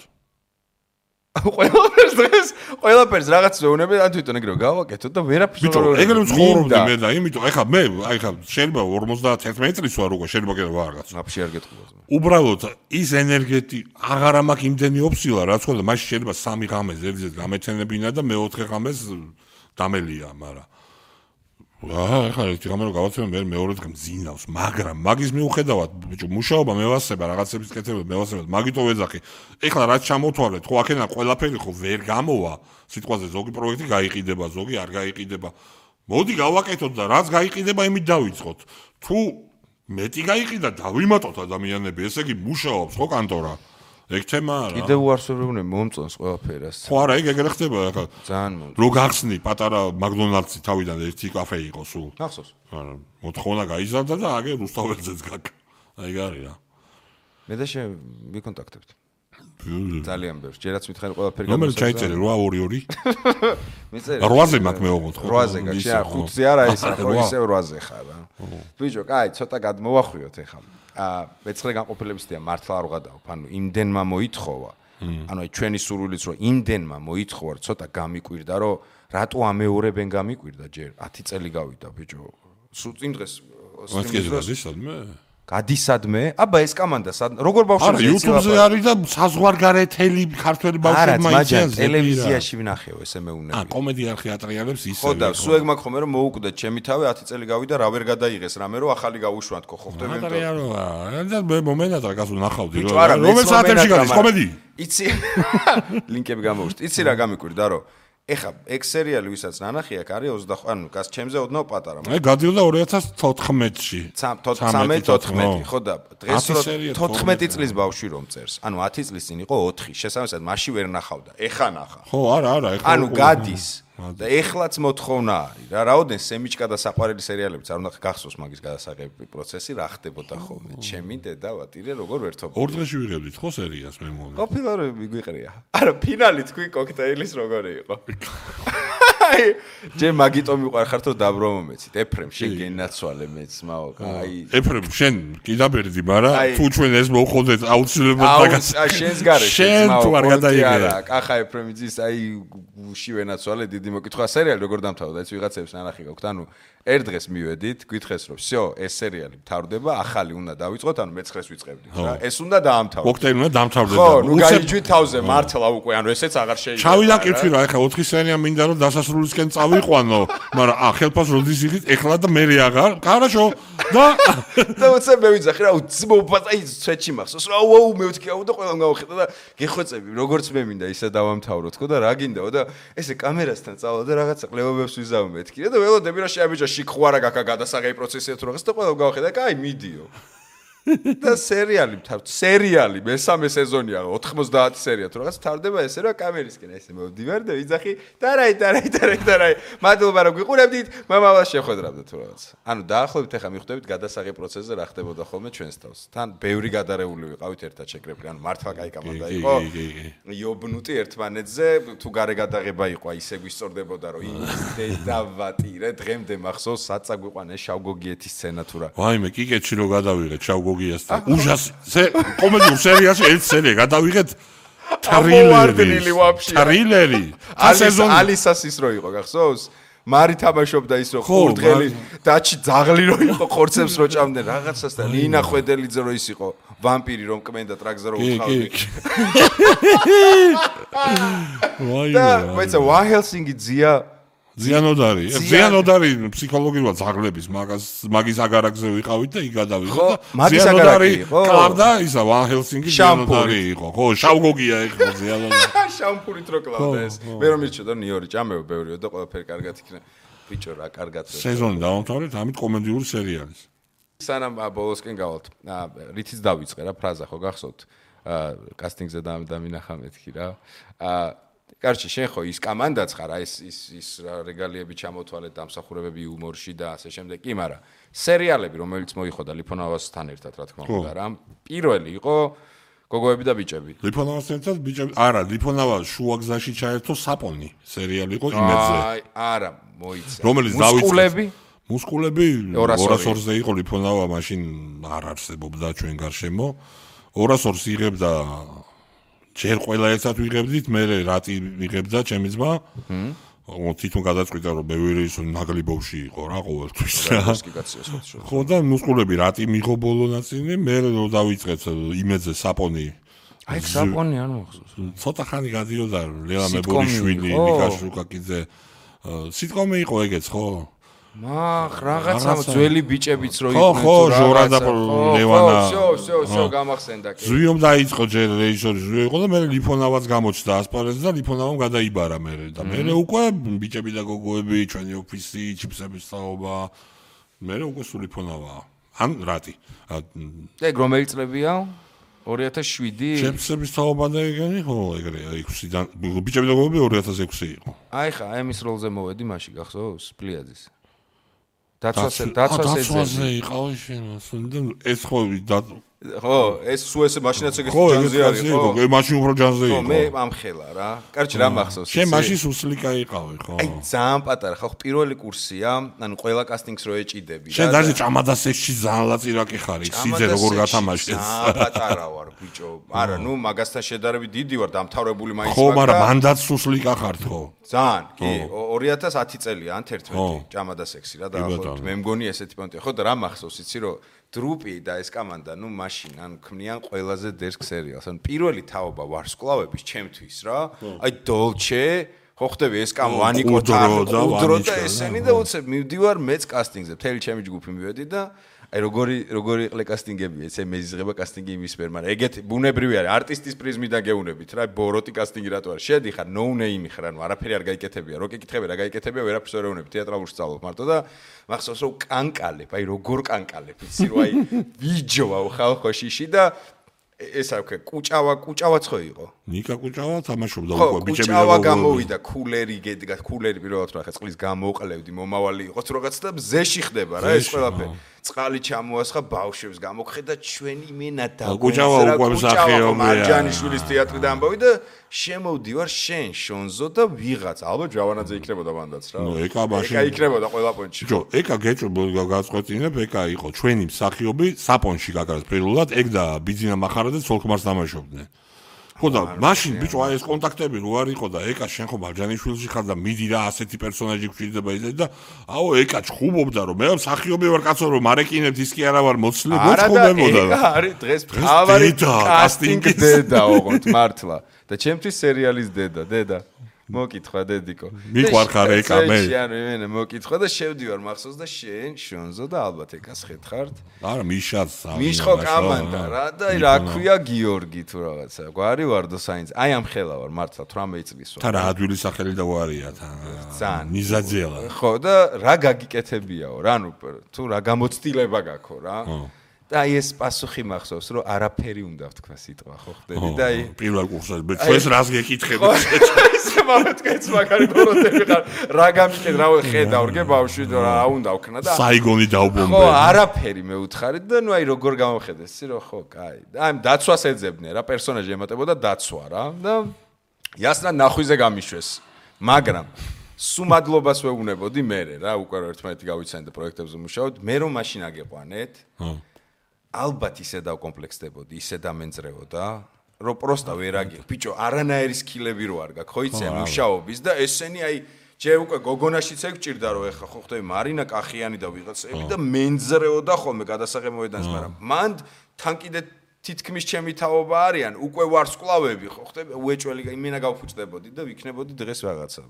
ყველაფერს რაღაც ვეუნები ან თვითონ ეგრე გავაკეთოთ და ვერაფერს ვეუნები. ბიჭო, ეგრე ცხოვრობდი მე და იმიტომ ეხლა მე ხა შეიძლება 51 წლის ვარ უკვე შეიძლება კიდე ვარღაც. აფში არ გეტყობოს. უბრალოდ ის ენერგეტი აღარ მაქვს იმდენი ოფსილა რაც ხოლმე მაშინ შეიძლება 3 ღამეს ერთზეც გამეცენებინა და მე-4 ღამეს დამელია, მაგრამ ახლა ერთი გამერო გავაცემ მე მეორე დღე მძინავს, მაგრამ მაგის მიუხედავად ბიჭო მუშაობა მევასება რაღაცების კეთება მევასება მაგითო ვეძახი. ეხლა რაც ჩამოთვალეთ, ხო აქენა ყველაფერი ხო ვერ გამოვა. სიტყვაზე ზოგი პროექტი გაიყიდება, ზოგი არ გაიყიდება. მოდი გავაკეთოთ და რაც გაიყიდება იმით დავიწყოთ. თუ მეტი გაიყიდა დავიმატოთ ადამიანები, ესე იგი მუშაობს ხო კანტორა. ეგ თემა არა. კიდევ უარსებობენ მომწონს ყველაფერას. ხო არა, ეგ ეგრე ხდება ახლა. ძალიან მომწონს. რო გახსნი პატარა მაგდონალდსი თავიდან ერთი კაფე იყო სულ. ახსოვს. არა, მოთხოვნა გაიზარდა და აგე რუსთაველზეც გაკ. აი გარი რა. მე და შენ ვიკონტაქტებთ. ძალიან ბევრს. ჯერაც მითხარი ყველაფერი გამოსაგზავნე. ნომერი ჩაიწერე 822. მიწერი. 8-ზე მაქვს მე ოღონდ ხო? 8-ზე გაჩი, 5-ზე არა ის ახლა ისევ 8-ზე ხარ რა. ბიჭო, კაი, ცოტა გადმოვახვიოთ ეხლა. მეცხრე განყოფილებისთია მართლა არ ვღადავ. ანუ იმდენმა მოითხოვა. ანუ აი ჩვენი სურვილიც რომ იმდენმა მოითხოვა, ცოტა გამიკვირდა, რომ რატო ამეორებენ გამიკვირდა ჯერ 10 წელი გავიდა ბიჭო. სულ წინ დღეს გადისადმე? აბა ეს კომანდა როგორ ბავშვებს ეცილება? არა, YouTube-ზე არის და საზღვარგარეთელი ქართველი ბავშვებმა იციან. არა, ტელევიზიაში ვნახეო ესე მეუნები. კომედია ხეატრიანებს ისე. ხო და სულ ეგ მაქვს ხომ რომ მოუკვდეთ ჩემი თავი 10 წელი გავიდა რა ვერ გადაიღეს რამე რომ ახალი გავუშვათ ხო ხდება იმიტომ. და მე მომენტად რა გასულ ნახავდი რომ რომელ საათებში გადის კომედი? იცი ლინკები გამოვშტ. იცი რა გამიკვირდა რომ ეხა ეგ სერიალი ვისაც ნანახი აქ არის 25 ანუ გას ჩემზე ოდნავ პატარა. მე გადიოდა 2014-ში. 13-14 ხო და დღეს 14 წლის ბავშვი რომ წერს. ანუ 10 წლის წინ იყო 4. შესაბამისად მაშინ ვერ ნახავდა. ეხა ნახა. ხო, არა, ეხა. ანუ გადის. და ეხლაც მოთხოვნა არის რა. რაოდენ სემიჩკა და საყვარელი სერიალებიც არ უნდა გახსოვს მაგის გადასაღები პროცესი რა ხდებოდა ხოლმე. ჩემი დედა ვატირე როგორ ვერთობ. ორ დღეში ვიღებდით ხო სერიას მე მომე. ყოფილარები მიგვიყრია. არა, ფინალი თქვი კოქტეილის როგორი იყო. ჯერ მაგიტო მიყვარხარ თუ დაბრომომეცით. ეფრემ შენ გენაცვალე მეც მაო. აი ეფრემ შენ კიდაბერდი, მაგრამ თუ ჩვენ ეს მოხდეთ აუცილებლად მაგას. შენს გარეშე შენ თუ არ გადაიგე. კახა ეფრემიძის აი გუში ვენაცვალე დიდი მოკითხვა სერიალი როგორ დამთავრდა ეს ვიღაცებს ნანახი გაქვთ. ანუ ერთ დღეს მივედით, გითხეს რომ всё, ეს სერიალი მთავრდება, ახალი უნდა დავიწყოთ, ანუ მე-9-ს ვიწყებდით რა. ეს უნდა დაამთავრდეთ. კოქტეილი უნდა დამთავრდება. ხო, ნუ გაიჯვით თავზე მართლა უკვე, ანუ ესეც აღარ შეიძლება. ჩავიდა კითხვი რა, ეხლა 4 სერია მინდა რომ დასასრულისკენ წავიყვანო, მაგრამ ხელფას როდის იღით, ეხლა და მე აღარ. კარაშო. და უცებ მე ვიძახი რა, უცბობატაი ცეჩი მახსოვს რა, აუ მე ვთქი აუ და ყველამ გავხედა და გეხვეწები, როგორც მე მინდა ისე დავამთავროთ ხო და რა გინდაო და ესე კამერასთან წავალ და რაღაცა ყლებობებს ვიზავ მეთქი და ველოდები რა შეაბიჯა შიქხვარა გაკა გადასაღები პროცესია თუ რაღაც და ყველამ გავხედა, კაი მიდიო. და სერიალი მესამე სეზონია 90 სერია თუ რაღაც თავდება ესე რა კამერისკენ ესე მოვდივარ და ვიძახი დარაი მადლობა რომ გიყურებდით მამავალს შეხვედრამდე თუ რაღაც ანუ დაახლოებით ახლა მიხვდებით გადასაღებ პროცესზე რა ხდებოდა ხოლმე ჩვენს თავს თან ბევრი გადარეული ვიყავით ერთად შეკრებილი ანუ მართლა კაი კომანდა იყო იობნუტი ერთმანეთზე თუ გარე გადაღება იყო ისე გვისწორდებოდა რომ დედავატირე დღემდე მახსოვს საცა გვიყვანეს შავგოგიეთის სცენა თუ რა ვაიმე კიკეთში რო გადავიღეთ შავგოგიეთს უშას კომედიურ სერიაში ერთ სერია გადავიღეთ ტრილერი ალისასის რო იყო გახსოვს მარი თამაშობდა ის რომ ხურდღელი დაჩი ძაღლი რო იყო ხორცებს რო ჭამდნენ რაღაცას და ნინა ხვედელიძე რო ის იყო ვამპირი რომ კმენდა ტრაქზე რო უთხავდი და მეცა ვა ჰელსინგი ზიანოდარი ფსიქოლოგიურად ზაღლების მაგის აგარაკზე ვიყავით და იქ გადავიღო და ზიანოდარი კლავდა ისა ვა ჰელსინგი ზიანოდარი იყო ხო შავგოგია ეხლა ზიანოდარი შამპურით რო კლავდა ეს მე რომ მირჩოდა ნიორი ჭამეო ბევრიო და ყველაფერი კარგად იქნება ბიჭო რა კარგად სეზონი დავამთავრეთ ამით კომედიური სერიალის სანამ ბოლოსკენ გავალთ რითიც დავიწყე რა ფრაზა ხო გახსოვთ კასტინგზე დამინახა მეთქი რა კარჩი შენ ხო ის კამანდაც ხარ აი ის რეგალიები ჩამოთვალეთ დამსახურებები იუმორში და ასე შემდეგ კი მაგრამ სერიალები რომელიც მოიხოდა ლიფონავასთან ერთად რა თქმა უნდა რა პირველი იყო გოგოები და ბიჭები ლიფონავასთან ერთად ბიჭები არა ლიფონავა შუაგზაში ჩაერთო საპონი სერიალი იყო იმედზე არა მოიცა რომელიც დავიწყე მუსკულები 202-ზე იყო ლიფონავა მაშინ არ არსებობდა ჩვენ გარშემო 202-ს იღებდა ჯერ ყველა ერთად ვიღებდით, მე რატი ვიღებდა ჩემი ძმა. თვითონ გადაწყვიტა რომ ბევრი ის ნაგლიბოვში იყო რა ყოველთვის. ხო და მუსკულები რატი მიღო ბოლო ნაწილი, მე რო დავიწყეთ იმედზე საპონი. აი საპონი არ მოხსოვს. ცოტა ხანი გადიოდა ლელა მებოლიშვილი, ნიკა შუკაკიძე. სიტყვამე იყო ეგეც ხო? რაღაცა ძველი ბიჭებიც რო იყვნენ ხო ჟორა და ლევანა всё გამახსენდა კი ზვიომ დაიწყო ჯერ რეჟისორი ზვიო იყო და მე ლიფონავაც გამოჩნდა ასპარეზზე და ლიფონავამ გადაიბარა მე და მე უკვე ბიჭები და გოგოები ჩვენი ოფისი ჩიფსების საობა მე უკვე სულ ლიფონავაა ან რატი ეგ რომელი წლებია 2007 ჩიფსების საობა და ეგენი ხო ეგრეა 6-დან ბიჭები და გოგოები 2006 იყო აი ხა ემის როლზე მოვედი მაშინ გახსოვს პლიაძის დაცვაზე იყავი შენ ეს ხო ხო ეს სულ ესე მაშინაც ეგ ჯანზე არის ხო მაშინ უფრო ჯანზე იყო მე ამხელა რა კარჩი რა მახსოვს შენ მაშინ სუსლიკა იყავი ხო აი ძალიან პატარა ხო პირველი კურსია ანუ ყველა კასტინგს რო ეჭიდები შენ დაჟე ჭამადასეში ძალიან ლაწირაკი ხარი სიძე როგორ გათამაშეს ძალიან პატარა ვარ ბიჭო არა ნუ მაგასთან შედარებით დიდი ვარ დამთავრებული მაინც ხო მაგრამ მანდაც სუსლიკა ხარ ხო ძალიან კი 2010 წელია ან 11 ჭამადასექსი რა დაახლოებით მე მგონი ესეთი პონტია ხო და რა მახსოვს იცი რომ დრუპი და ეს კამანდა, ნუ მაშინ ან ქმნიან ყველაზე დერსკ სერიალს. ან პირველი თაობა ვარსკვლავების ჩემთვის რა. აი დოლჩე, ხო ხდები ეს კამ ვანიკო და ესენი და უცებ მივდივარ მეც კასტინგზე. მთელი ჩემი ჯგუფი მივედი და აი როგორი იყვე კასტინგები, ესე მეზიზღება კასტინგი იმის მიერ, მაგრამ ეგეთი ბუნებრივი არის, არტისტის პრიზმიდან გეუნებით რა, ბოროტი კასტინგი რატო არის? შედიხარ no name ხარ, ანუ არაფერი არ გაიკეთებია, რო კითხები რა გაიკეთებია, ვერაფერს ვერ ეუნები, თეატრალურ სწავლობ მარტო და მახსოვს რომ კანკალებ, აი როგორ კანკალებ, იცი რომ აი ვიჯოვა ხალხოშიში და ეს აქვს კუჭავაც ხო იყო? ნიკა კუჭავა თამაშობდა უკვე ბიჭები და კუჭავა გამოვიდა, კულერი გედგა, კულერი პირველად რა ხა წყლის გამოყლევდი, მომავალი იყოს რაღაც და მზეში ხდება რა ეს ყველაფერი. წყალი ჩამოასხა ბავშვებს გამოგხედა ჩვენი მენა და კუჭავა უკვე მსახიობია მარჯანიშვილის თეატრიდან ამბავი და შემოვდივარ შენ შონზო და ვიღაც ალბათ ჯავანაძე იქნებოდა მანდაც რა ნუ ეკა მაშინ ეკა იქნებოდა ყველა პონჩი ჯო ეკა გაწყვეტინებ ეკა იყო ჩვენი მსახიობი საპონში გაგარეს პირველად ეგ და ბიძინა მახარა და ცოლქმარს დამაშობდნენ ხო და მაშინ ბიჭო აი ეს კონტაქტები რო არ იყო და ეკა შენ ხო მარჯანიშვილში ხარ და მიდი რა ასეთი პერსონაჟი გვჭირდება ისე და აო ეკა ჩხუბობდა რომ მე მსახიობი ვარ კაცო რომ მარეკინებთ ის კი არა ვარ მოცლი მოწყობებოდა რა არის დღეს თავარი კასტინგი დედა ოღონდ მართლა და ჩემთვის სერიალის დედა მოკითხვა დედიკო მიყვარხარ ეკა მე შენ მოკითხვა და შევდივარ მახსოვს და შენ შონზო და ალბათ ეკას ხეთხართ არა მიშაც მიშხო კამანდა რა და რა ქვია გიორგი თუ რაღაცა გვარი ვარდო საინც აი ამ ხელა ვარ მართლა 18 წლის ვარ თან რა ადვილი სახელი და ვარია თან ნიზაძელა ხო და რა გაგიკეთებიაო რა ნუ თუ რა გამოცდილება გაქვს რა და აი ეს პასუხი მახსოვს რომ არაფერი უნდა ვთქვა სიტყვა ხო ხდები და აი პირველ კურსზე ჩვენს რას გეკითხები ესე მომეთქეც მაგარი ბოროტები ხარ რა გამიკეთ რა ხედავ ბავშვი რა უნდა ვქნა და საიგონი დაუბომბე ხო არაფერი მეუთხარით და ნუ აი როგორ გამოხედეს ისი რომ ხო კაი და აი დაცვას ეძებდნენ რა პერსონაჟი ემატებოდა დაცვა რა და იასნა ნახვიზე გამიშვეს მაგრამ სუმადლობას ვეუბნებოდი მე რა უკვე ერთმანეთი გავიცანეთ და პროექტებზე მუშაობთ მე რომ მაშინ აგეყვანეთ ალბათ ისე დავკომპლექსდებოდი, ისე დამენწრეოდა, რომ პროსტა ვერ აგიხ. ბიჭო, არანაირი სკილები რო არ გაქვს, ხო იცი, მუშაობის და ესენი აი ჯერ უკვე გოგონაშიც ეგ ჭირდა რომ ეხა ხო ხდები მარინა კახიანი და ვიღაცები და მენძრეოდა ხოლმე გადასაღებოედანს, მაგრამ მან თან კიდე თითქმის ჩემი თაობა არიან, უკვე ვარსკვლავები ხო ხდები, უეჭველი იმენა გავფუჭდებოდი და ვიქნებოდი დღეს რაღაცა.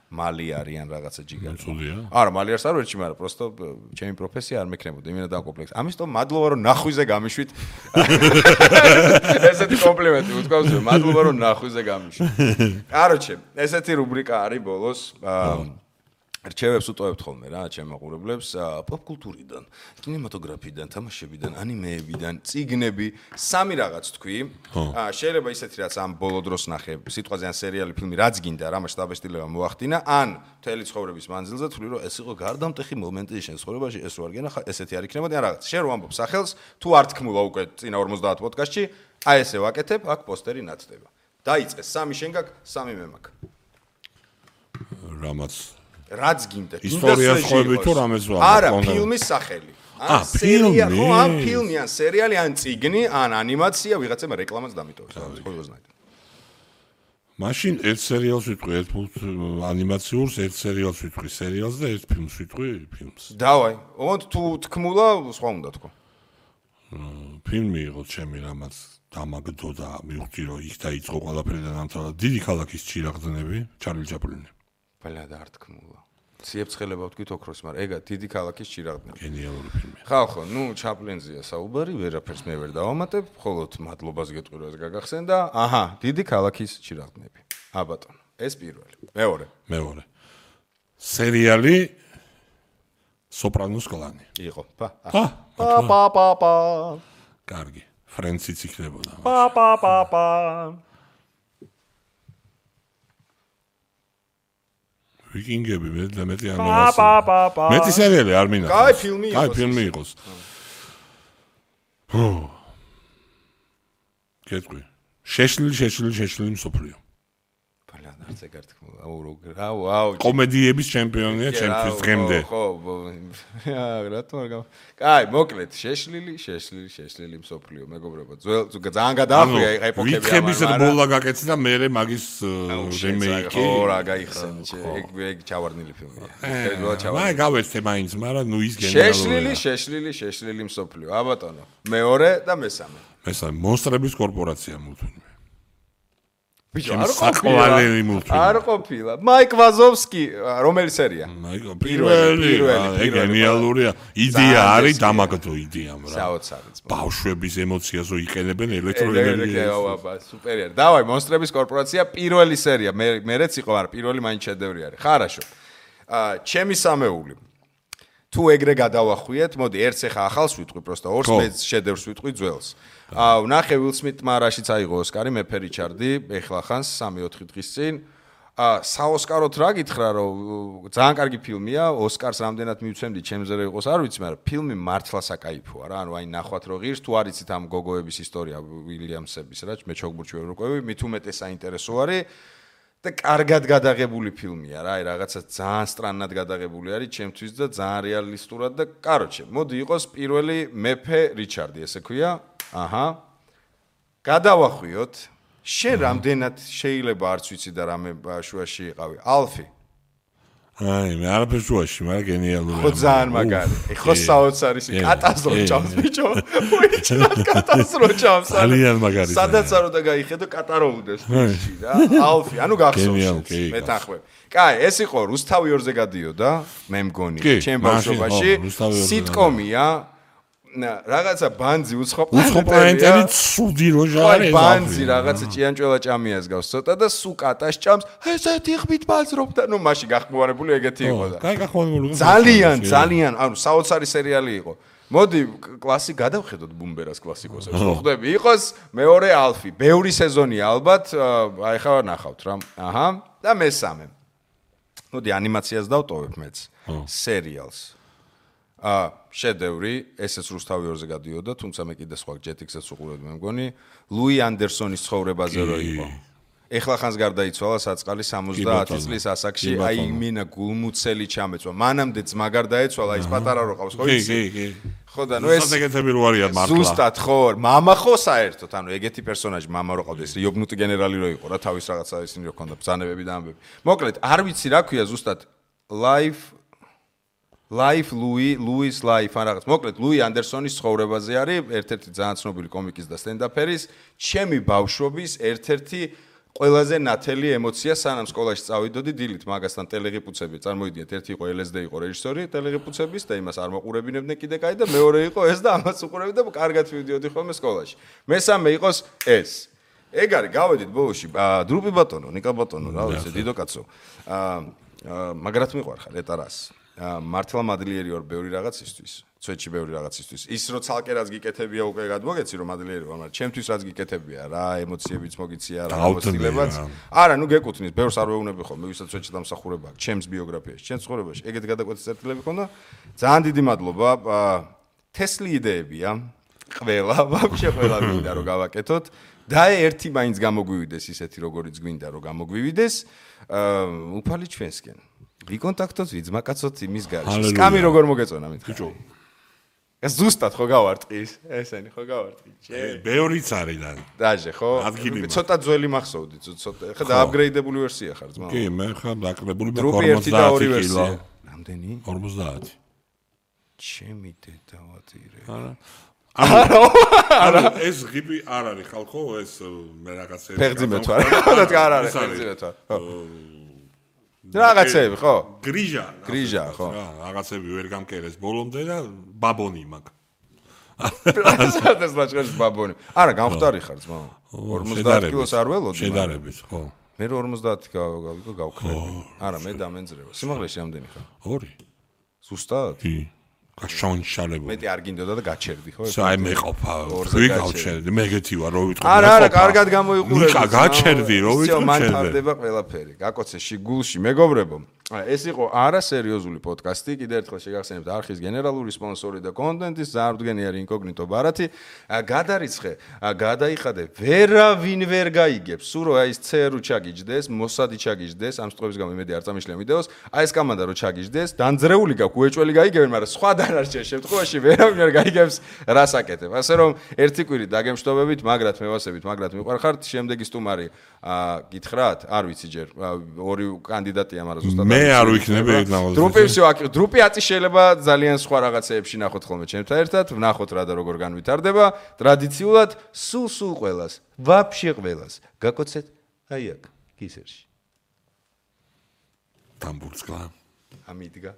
მალი არიან რაღაცა ჯიგარი. არა, მალი არს არ ვერჩი, მაგრამ просто ჩემი პროფესია არ მექნებოდა, იმენა დამკომპლექსი. ამიტომ მადლობა რომ ნახვიზე გამიშვით. ესეთი კომპლიმენტი უთქვამს, მადლობა რომ ნახვიზე გამიშვით. კაროჩე, ესეთი რუბრიკა არის ბოლოს. რჩევებს უტოვებთ ხოლმე რა, ჩემ მაყურებლებს, პოპკულტურიდან, კინემატოგრაფიდან, თამაშებიდან, ანიმეებიდან, წიგნები, სამი რაღაც თქვი. შეიძლება ისეთი რაც ამ ბოლო დროს ნახე, სიტყვაზე ან სერიალი, ფილმი, რაც გინდა, რა მასშტაბესტილება მოახდინა, ან მთელი ცხოვრების მანძილზე თქვი, რომ ეს იყო გარდამტეხი მომენტი შენ ცხოვრებაში, ეს რო არ გენახა, ესეთი არ იქნებოდი, ან რაღაც. შენ რო ამბობ სახელს, თუ არ თქმულა უკვე წინა 50 პოდკასტში, აი ესე ვაკეთებ, აქ პოსტერი ნათდება. დაიწყეს, სამი შენ გაქვს, სამი მე მაქვს. რამაც რაც გინდა. ისტორიას ხვები თუ რამეს ვარ. არა, ფილმის სახელი. ან სერია, ხო, ან ფილმი, ან სერიალი, ან წიგნი, ან ანიმაცია, ვიღაცამ რეკლამაც დამიტოვებს. ყოველგვარად. მაშინ ერთ სერიალს ვიტყვი, ერთ ანიმაციურს, ერთ სერიალს ვიტყვი, სერიალს და ერთ ფილმს ვიტყვი, ფილმს. დავაი. ოღონდ თუ თქმულა, სხვა უნდა თქო. ფილმი იყო ჩემი რამაც დამაგდო და მივხვდი რომ იქ დაიწყო ყველაფერი და დამთავრდა დიდი ქალაქის ჩირაღდნები, ჩარლი ჩაპლინი. ბალა და არ თქმულა. ციებცხელება ვთქვით ოქროს, მაგრამ ეგა დიდი ქალაქის ჩირაღდნები. გენიალური ფილმია. ხო, ნუ ჩაპლინზეა საუბარი, ვერაფერს მე ვერ დავამატებ, მხოლოდ მადლობას გეტყვი რომ ეს გაგახსენდა. აჰა, დიდი ქალაქის ჩირაღდნები. ბატონო, ეს პირველი. მეორე. სერიალი სოპრანოს კლანი. იყო. კარგი. ფრენციც იქნებოდა. ვიკინგები მეტი არ მომასწრე. მეტი სერიალი არ მინახავს. კაი ფილმი იყოს. კაი ფილმი იყოს. კეთყვი. შეშლილი მსოფლიო. ბალა არც ეგ არ თქმულა. აუ. კომედიების ჩემპიონია ჩემთვის დღემდე. ხო. რატომ არ კაი, მოკლედ, შეშლილი მსოფლიო, მეგობრებო. ძალიან გადაახვია აი ეპოქები ამან. ვითხების ბოლა გაკეთე და მე მაგის რემეიკი. ხო, რა გაიხსენე, ეგ ჩავარდნილი ფილმია. აი გავეცე მაინც, მაგრამ ნუ ის გენერალურია. შეშლილი მსოფლიო. ბატონო. მეორე და მესამე. მონსტრების კორპორაცია მულტფილმი. ბიჭო, არ ყოფილა. მაიკ ვაზოვსკი, რომელი სერია? პირველი. ეგ გენიალურია. იდეა არის დამაგდო იდეამ რა. საოცარი. ბავშვების ემოციაზო იყენებენ ელექტროენერგიას. სუპერია. დავაი, მონსტრების კორპორაცია პირველი სერია. მერეც იყო, მაგრამ პირველი მაინც შედევრი არის. ხარაშო. ჩემი სამეული. თუ ეგრე გადავახვიეთ, მოდი ერთს ახლა ახალს ვიტყვი, პროსტა ორს მე შედევრს ვიტყვი ძველს. ნახე ვილ სმიტმა რაშიც აიღო ოსკარი, მეფე რიჩარდი, ეხლა ხანს 3-4 დღის წინ. საოსკაროთ რა გითხრა, რომ ძალიან კარგი ფილმია, ოსკარს რამდენად მივცემდი, ჩემზე რა იყოს, არ ვიცი, მაგრამ ფილმი მართლა საკაიფოა რა, ანუ აი ნახვათ რო ღირს, თუ არ იცით ამ გოგოების ისტორია უილიამსების რა, მე ჩოგბურჩი ვერ ვყვევი, მით უმეტეს საინტერესო არის. და კარგად გადაღებული ფილმია რა, აი რაღაცა ძალიან სტრანად გადაღებული არის ჩემთვის და ძალიან რეალისტურად და კაროჩე, მოდი იყოს პირველი მეფე რიჩარდი, ესე ქვია. აჰა. გადავახვიოთ. შენ რამდენად შეიძლება არც ვიცი და რამე შუაში იყავი. ალფი. აი, მე არაფერ შუაში, მაგრამ გენიალურია. ხო ძალიან მაგარი. ხო საოცარი კატასტროფა ჭამს ბიჭო. უიჩნდა კატასტროფა ჭამს. ძალიან მაგარი. სადაც არ უნდა გაიხედო კატაროუდეს ფიში რა. ალფი, ანუ გახსოვს. მეთანხმებ. კაი, ეს იყო რუსთავი 2-ზე გადიოდა, მე მგონი, ჩემ ბავშვობაში. სიტკომია. რაღაცა ბანძი უცხოპლანეტელი ცუდი როჟარი ბანძი რაღაცა ჭიანჭველა ჭამიას გავს ცოტა და სუ კატას ჭამს ესეთი ხმით ბაზრობ და ნუ მაშინ გახმოვანებული ეგეთი იყო და კაი გახმოვანებული ძალიან ანუ საოცარი სერიალი იყო მოდი კლასი გადავხედოთ ბუმბერას კლასიკოსებს ხო ხდები იყოს მეორე ალფი ბევრი სეზონია ალბათ აი ხა ნახავთ რა აჰა და მესამე მოდი ანიმაციას დავტოვებ მეც სერიალს შედევრი, ესეც რუსთავი 2-ზე გადიოდა, თუმცა მე კიდე სხვა ჯეტიქსებს უყურებდი, მე მგონი, ლუი ანდერსონის ცხოვრებაზე რო იყო. ეხლა ხანს გარდაიცვალა საწყალი 70 წლის ასაკში, აი მინა გულმუცელი ჩამეწვა. მანამდე ძმა გარდაეცვალა, ის პატარა რო ყავს, ხო იცი? კი. ხო და ნუ ეს ეგეთები რო არიან მართლა. ზუსტად ხო, მამა ხო საერთოდ, ანუ ეგეთი პერსონაჟი მამა რო ყავდეს, იობნუტი გენერალი რო იყო რა, თავის რაღაცა ისინი რო ქონდა ბრძანებები და ამბები. მოკლედ, არ ვიცი რა ქვია ზუსტად Life Louis Life ან რაღაც. მოკლედ, ლუი ანდერსონის ცხოვრებაზე არის ერთ-ერთი ძალიან ცნობილი კომიკის და სტენდაფერის, ჩემი ბავშვობის ერთ-ერთი ყველაზე ნათელი ემოცია სანამ სკოლაში წავიდოდი დილით მაგასთან ტელეღიპუცები წარმოიდგინეთ ერთი იყო LSD იყო რეჟისორი ტელეღიპუცების და იმას არ მოყურებინებდნენ კიდე კაი და მეორე იყო ეს და ამას უყურებდი და კარგად ვიდიოდი ხოლმე სკოლაში მესამე იყოს ეს ეგ არის გავედით ბოლოში დრუპი ბატონო ნიკა ბატონო რა ვიცი დიდო კაცო მაგრად მიყვარხარ ეტარას მართლა მადლიერი ვარ ბევრი რაღაცისთვის ცვეთში ბევრი რაღაცისთვის ის რო ცალკე რაც გიკეთებია უკვე გადმოგეცი რომ მადლიერი ვარ მაგრამ ჩემთვის რაც გიკეთებია რა ემოციებიც მოგიცია რა მოსილებაც არა ნუ გეკუთვნის ბევრს არ ვეუბნები ხოლმე ვისაც ცვეთში დამსახურება აქვს ჩემს ბიოგრაფიაში ჩემს ცხოვრებაში ეგეთი გადაკვეთის წერტილები ქონდა ძალიან დიდი მადლობა თესლი იდეებია ყველა ვაფშე ყველა მინდა რომ გავაკეთოთ და ერთი მაინც გამოგვივიდეს ისეთი როგორიც გვინდა რომ გამოგვივიდეს უფალი ჩვენსკენ ვიკონტაქტოთ ვიძმაკაცოთ იმის გარშე სკამი როგორ მოგეწონა მითხარ ეს ზუსტად ხო გავარტყის ესენი ხო გავარტყი ბევრიც არის და დაჟე ხო ცოტა ძველი მახსოვდი ცოტა ხა დააპგრეიდებული ვერსია ხარ ძმა კი მე ხა დაკლებული მე 50 ვერსია რამდენი 50 ჩემი დედავატირე არა ეს ღიბი არ არის ხალხო ეს მე რაღაცები ფეხძიმეთ ვარ არ არის ფეხძიმეთ ვარ რაღაცები ხო გრიჟა ხო რაღაცები ვერ გამკერეს ბოლომდე და ბაბონი მაგ ეს ლაჭყელის ბაბონი არა გამختარი ხარ ძმა 50 კილოს არ ველოდი შედარებით ხო მე 50 გავქრები არა მე დამენძრევა სიმაღლეში რამდენი ხარ 2 ზუსტად კი გაშონშალებული მეტი არ გინდოდა და გაჩერდი ხო აი მე ყოფა ვი გავჩერდი მე გეთი ვარ რო ვიტყვი არა კარგად გამოიყურე ნიკა გაჩერდი რო ვიტყვი მან თარდება ყველაფერი გაკოცე შიგულში მეგობრებო ეს იყო არასერიოზული პოდკასტი კიდევ ერთხელ შეგახსენებთ არხის გენერალური სპონსორი და კონტენტის ზარდგენიერი ინკოგნიტო ბარათი გადარიცხე გადაიხადე ვერავინ ვერ გაიგებს სულ რომ აი ეს ცერუ ჩაგიჯდეს მოსადი ჩაგიჯდეს ამ სტყობის გამო იმედი არ წამიშლია ვიდეოს აი ეს კამანდა რო ჩაგიჯდეს დანძრეული გაქვს უეჭველი გაიგებენ მაგრამ სხვა დანარჩენ შემთხვევაში ვერავინ ვერ გაიგებს რას აკეთებ ასე რომ ერთი კვირით დაგემშვიდობებით მაგრად მევასებით მაგრამ მიყვარხართ შემდეგი სტუმარი გითხრათ არ ვიცი ჯერ ორი კანდიდატია მაგრამ ზუსტად მე არ ვიქნები დრუპი აწი შეიძლება ძალიან სხვა რაღაცეებში ნახოთ ხოლმე ჩემთან ერთად ვნახოთ რა და როგორ განვითარდება ტრადიციულად სულ ყველას ვაფშე ყველას გაკოცეთ აი აქ კისერში დამბურცკლა ამიდგა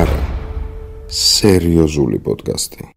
არა სერიოზული პოდკასტი